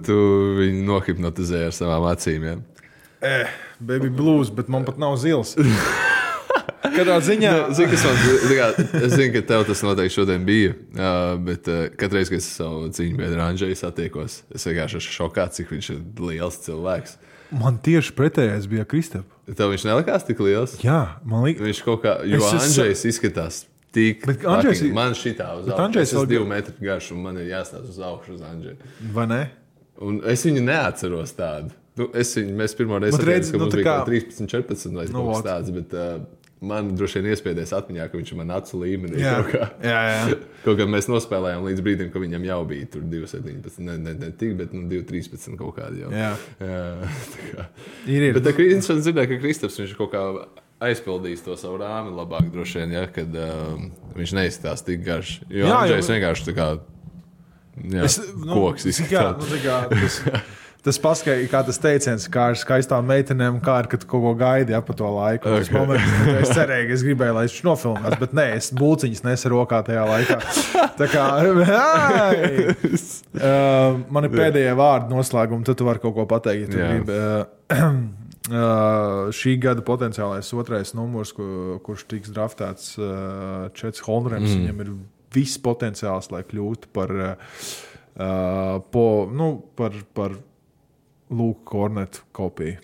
tu viņu nohipnotizēji ar savām acīm, jā? Baby blues, bet man pat nav zils. Katrā ziņā... Es zinu, ka tev tas noteikti šodien bija, bet katreiz, kad es savu cīņu biedru Andžeju satiekos, es vienkārši esmu šokā, cik viņš ir liels cilvēks. Man tieši pretējais bija Kristap. Tev viņš nelikās tik liels? Jā, man liekas. Viņš kaut kā, jo Andžejs izskatās tik... Man šitā uz augšu. Es esmu 2 metri garš un man ir jāstāst uz augšu uz Andžeju. Vai ne? Un es viņu neatceros tādu. Mēs pirmo reizi atceros, ka mums bija 13, 14 vai kaut kas tāds, bet... Man droši vien iespēdēs atmiņā, ka viņš ir man acu līmenī. Kaut kā mēs nospēlējām līdz brīdim, ka viņam jau bija tur 2,17. Ne tik, bet 2,13 kaut kādi jau. Ir. Bet es dzirdēju, ka Kristaps viņš kaut kā aizpildīs to savu rāmi labāk droši vien, kad viņš neizskatās tik garš. Jo Andžejs vienkārši tā kā koks izskatās. Tas paskaidro, kā tas teiciens, kā ar skaistām meitenēm, kā ar, kad kaut ko gaidi pa to laiku. Es cerēju, ka es gribēju, lai viņš nofilmās, bet nē, es bulciņas nesu rokā tajā laikā. Tā kā, man ir pēdējie vārdi noslēgumi, tad tu vari kaut ko pateikt, ja tu gribi. Šī gada potenciālais 2. numurs, kurš tiks draftēts Čets Holmgrens, viņam ir viss potenciāls, lai kļūtu par Luke Kornetu kopiju.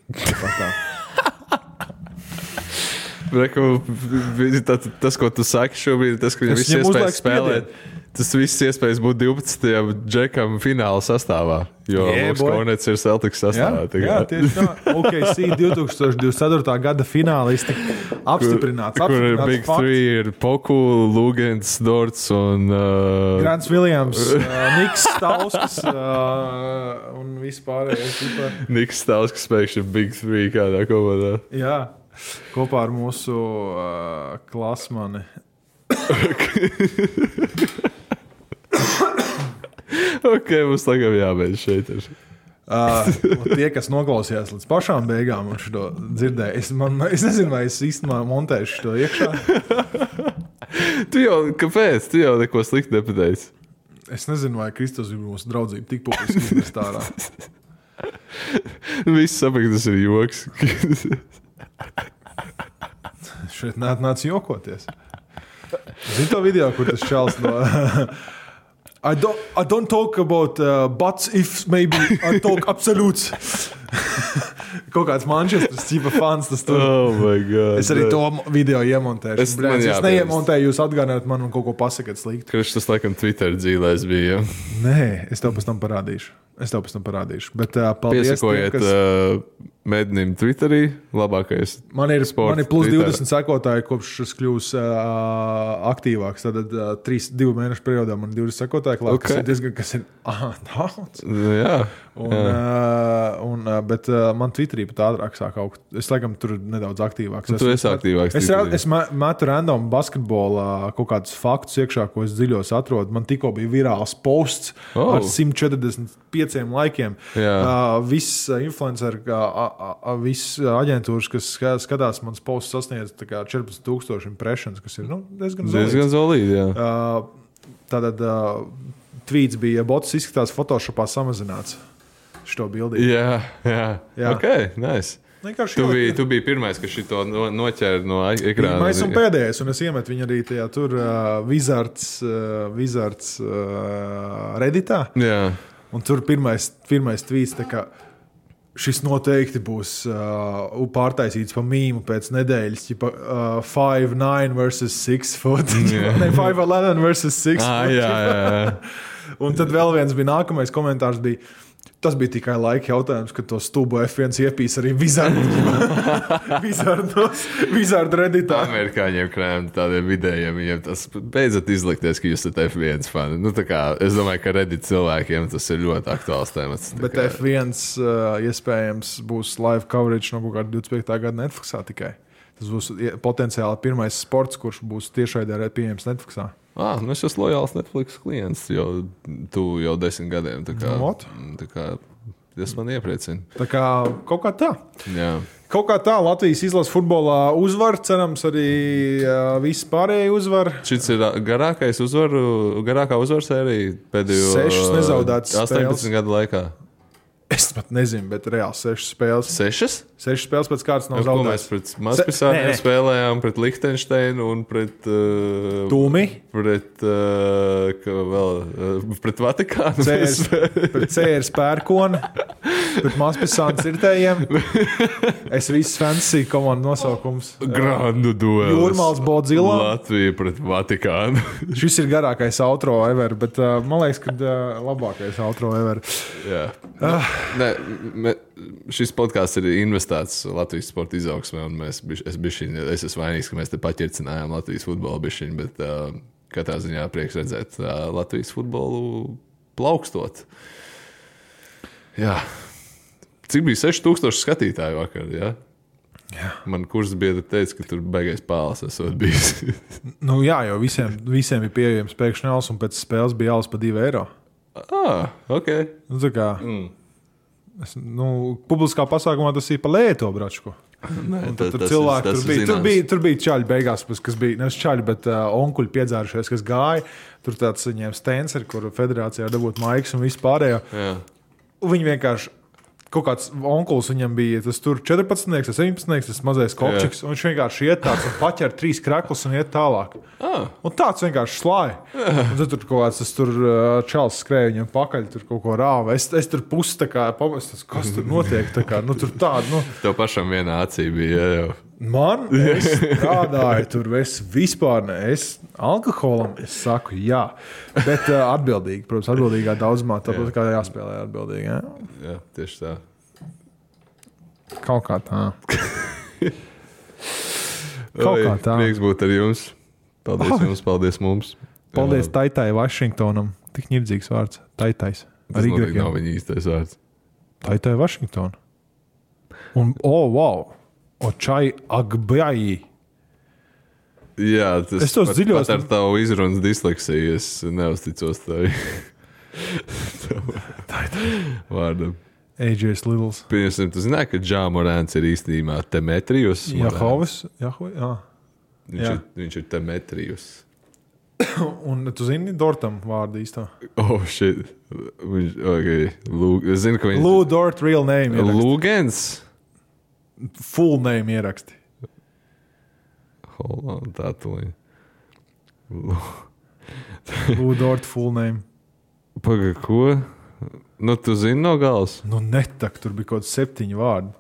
Tas, ko tu saki šobrīd, tas, ka viņam viss iespējas spēlēt. Tas viss iespējas būt 12. džekam fināla sastāvā, jo Luks Kornets ir Celtics sastāvā. Jā, tieši tā. OKC 2024. gada finālisti apstiprināts. Kur ir Big fakts. Three ir Poku, Lugans, Dorts un... Grants Williams, Niks Stauskas un vispārējais. Niks Stauskas pēkšņi ir Big Three kādā komandā. Jā, kopā ar mūsu klasmani. Ok, mums tagad jābeidz šeit. Tie, kas noklausījās līdz pašām beigām un šo dzirdēja, es nezinu, vai es īstenībā montēšu to iekšā. Kāpēc? Tu jau neko slikti nepateici. Es nezinu, vai Kristus ir mūsu draudzība tik publiski izmest ārā. Viss saprot, tas ir joks. Šeit nāc jokoties. Zini to video, kur tas čals no... I don't talk about buts if maybe I talk absolutes. Kaut kāds Manchesteras cipa fans tas tur. Oh my God. Es arī to video iemontēšu. Es neiemontēju, jūs atgādināt man un kaut ko pasakat slikti. Kurš tas laikam Twitter dzīlēs bija? Nē, es tev pēc tam parādīšu. Bet paldies. Piesakojiet Mednim Twitterī, labākais man ir plus Twitter. 20 sekotāji, kopš es kļūs aktīvāks. Tad 2 mēnešu periodā man 20 sekotāji klāt, okay. kas ir daudz. Jā. Bet man Twitterī pat ātrāk sāk augt. Es laikam tur nedaudz aktīvāks. Tu esi aktīvāks. Es metu random basketbolā kaut kādus faktus iekšā, ko es dziļos atrodu. Man tikko bija virāls posts ar 145 laikiem. Viss influenceri, viss aģentūras, kas skatās, mans posts sasniedz 14,000 impressions, kas ir diezgan zolīdi. Tātad tweets bija, ja bots izskatās Photoshopā samazināts šo bildī. Jā. Ok, nice. Tu biji pirmais, kas šito noķēra no ekrāna. Mēs esam pēdējais, un es iemetu viņu arī tajā tur Wizards Redditā. Jā. Un tur pirmais tweets, tā kā šis noteikti būs pārtaisīts pa mīmu pēc nedēļas, 5'9" versus 6 foot. Ne, 5'11" versus 6 foot. Jā. Un tad vēl viens bija nākamais komentārs bija, tas bija tikai laika jautājums, kad to stūbo F1 iepīs arī Wizard Redditā. Amerikāņiem krējiem tādiem vidējiem, viņiem tas beidzot izlikties, ka jūs esat F1 fani. Es domāju, ka Reddit cilvēkiem tas ir ļoti aktuāls temats. Bet F1 iespējams būs live coverage no kaut kāda 25. gada Netflixā tikai. Tas būs potenciāli pirmais sports, kurš būs tiešraidē pieejams Netflixā. Es esmu lojāls Netflix klients jau 10 gadiem. Tas man iepriecina. Tā kā kaut kā tā. Jā. Kaut kā tā Latvijas izlases futbolā uzvar, cerams arī visi pārējie uzvar. Šis ir garākā uzvaru sērija pēdējo 6 nezaudētas 18 gadu laikā. Es pat nezinu, bet reāli 6 spēles. 6? 6 spēles pēc kārtas nav zaudētas. Mēs pret Mazpilsāniem spēlējām, pret Lihtenšteinu un pret... Tūmi. Pret Vatikānu. Pret CR Pērkoni. Pret Mazpilsānu Cirtējiem. Es viss fantasy komandu nosaukums. Grandu duelis. Jūrmals Bodzila. Latvija pret Vatikānu. Šis ir garākais outro ever, bet man liekas, ka labākais outro ever. Jā. Šis podkāsts ir investēts Latvijas sporta izaugsmē, un es esmu vainīgs, ka mēs te paķercinājām Latvijas futbolu bišķiņu, bet katrā ziņā prieks redzēt Latvijas futbolu plaukstot. Jā. Cik bija 6,000 skatītāju vakar, jā? Jā. Man kursa biedra teica, ka tur baigais pāles esot bijis. Jā, jo visiem bija pieejams pēkšņi alus, un pēc spēles bija alus pa 2 eiro. Ok. Tā kā... publiskā pasākumā tas ir pa lēto bračku. Tur bija čaļi beigās, kas bija, nevis čaļi, bet onkuļi piedzērušies, kas gāja. Tur tāds viņiem stens, ar kuru federācijā dabūt maiks un visu pārējo. Jā. Viņi vienkārši, kaut kāds onkulis viņam bija, tas tur 14, 17, tas mazais kopčiks, un viņš vienkārši iet tāds un paķer 3 kreklus un iet tālāk. Un tāds vienkārši slāja. Un tad tur kaut kāds, tas tur čals skrēja viņam pakaļ, tur kaut ko rāva. Es tur pusi tā kā pamestas, kas tur notiek, tā kā, tur tāda, Tev pašam vienā acī bija, jau. Es strādāju tur, es vispār ne. Es alkoholam es saku jā, bet atbildīgi, protams, atbildīgā daudzumā, tāpat kā jāspēlē atbildīgi. Jā, jā tieši tā. Kaut kā tā. Prieks būt ar jums. Paldies jums, paldies mums. Paldies Taitai Vašingtonam. Tik ņirdzīgs vārds. Taitais. Tas noteikti nav viņa īstais vārds. Taitai Vašingtona. Un, wow. Očai Agbjai. Jā, tas dziļos... pat ar tavu izrunas disleksiju es neuzticos tevi. Vārdam. AJ's Littles. Pieņemsim, tu zināji, ka Džā Morāns ir īstenībā Demetrijus? Jahovis? Viņš ir Demetrijus. Un tu zini Dortam vārdu īstā? Oh, shit. Es zinu, ka viņš... Lou Dort real name ieraksti. Lūgens? Full name ieraksti. Hold on, tā tuliņ. Lou Dort full name. Paga, ko? Nu, tu zini no galas? Nu, netak, tur bija kaut 7 vārdi.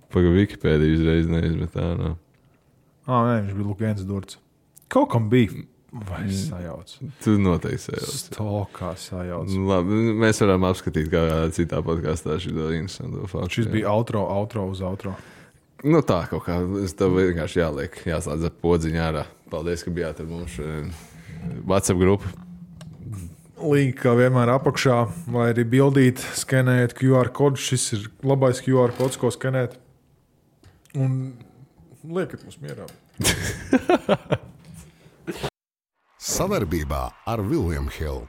Paga, Wikipēdija uzreiz neizmet tā, nav. Nē, viņš bija Lūgens Dorts. Kaut kam bija. Vai sajauc? Tu noteikti sajauc. Stokā sajauc. Labi, mēs varam apskatīt kādā citā podkastā šito interesantu faktu. Šis bija outro uz outro. Nu tā kaut kā, es tev vienkārši jāslēdz ar podziņu ārā. Paldies, ka bijāt ar mums WhatsApp grupu. Link kā vienmēr apakšā, vai arī bildīt, skenēt QR kodu. Šis ir labais QR kods, ko skenēt. Un liekat mums mierā. Sadarbībā ar William Hill.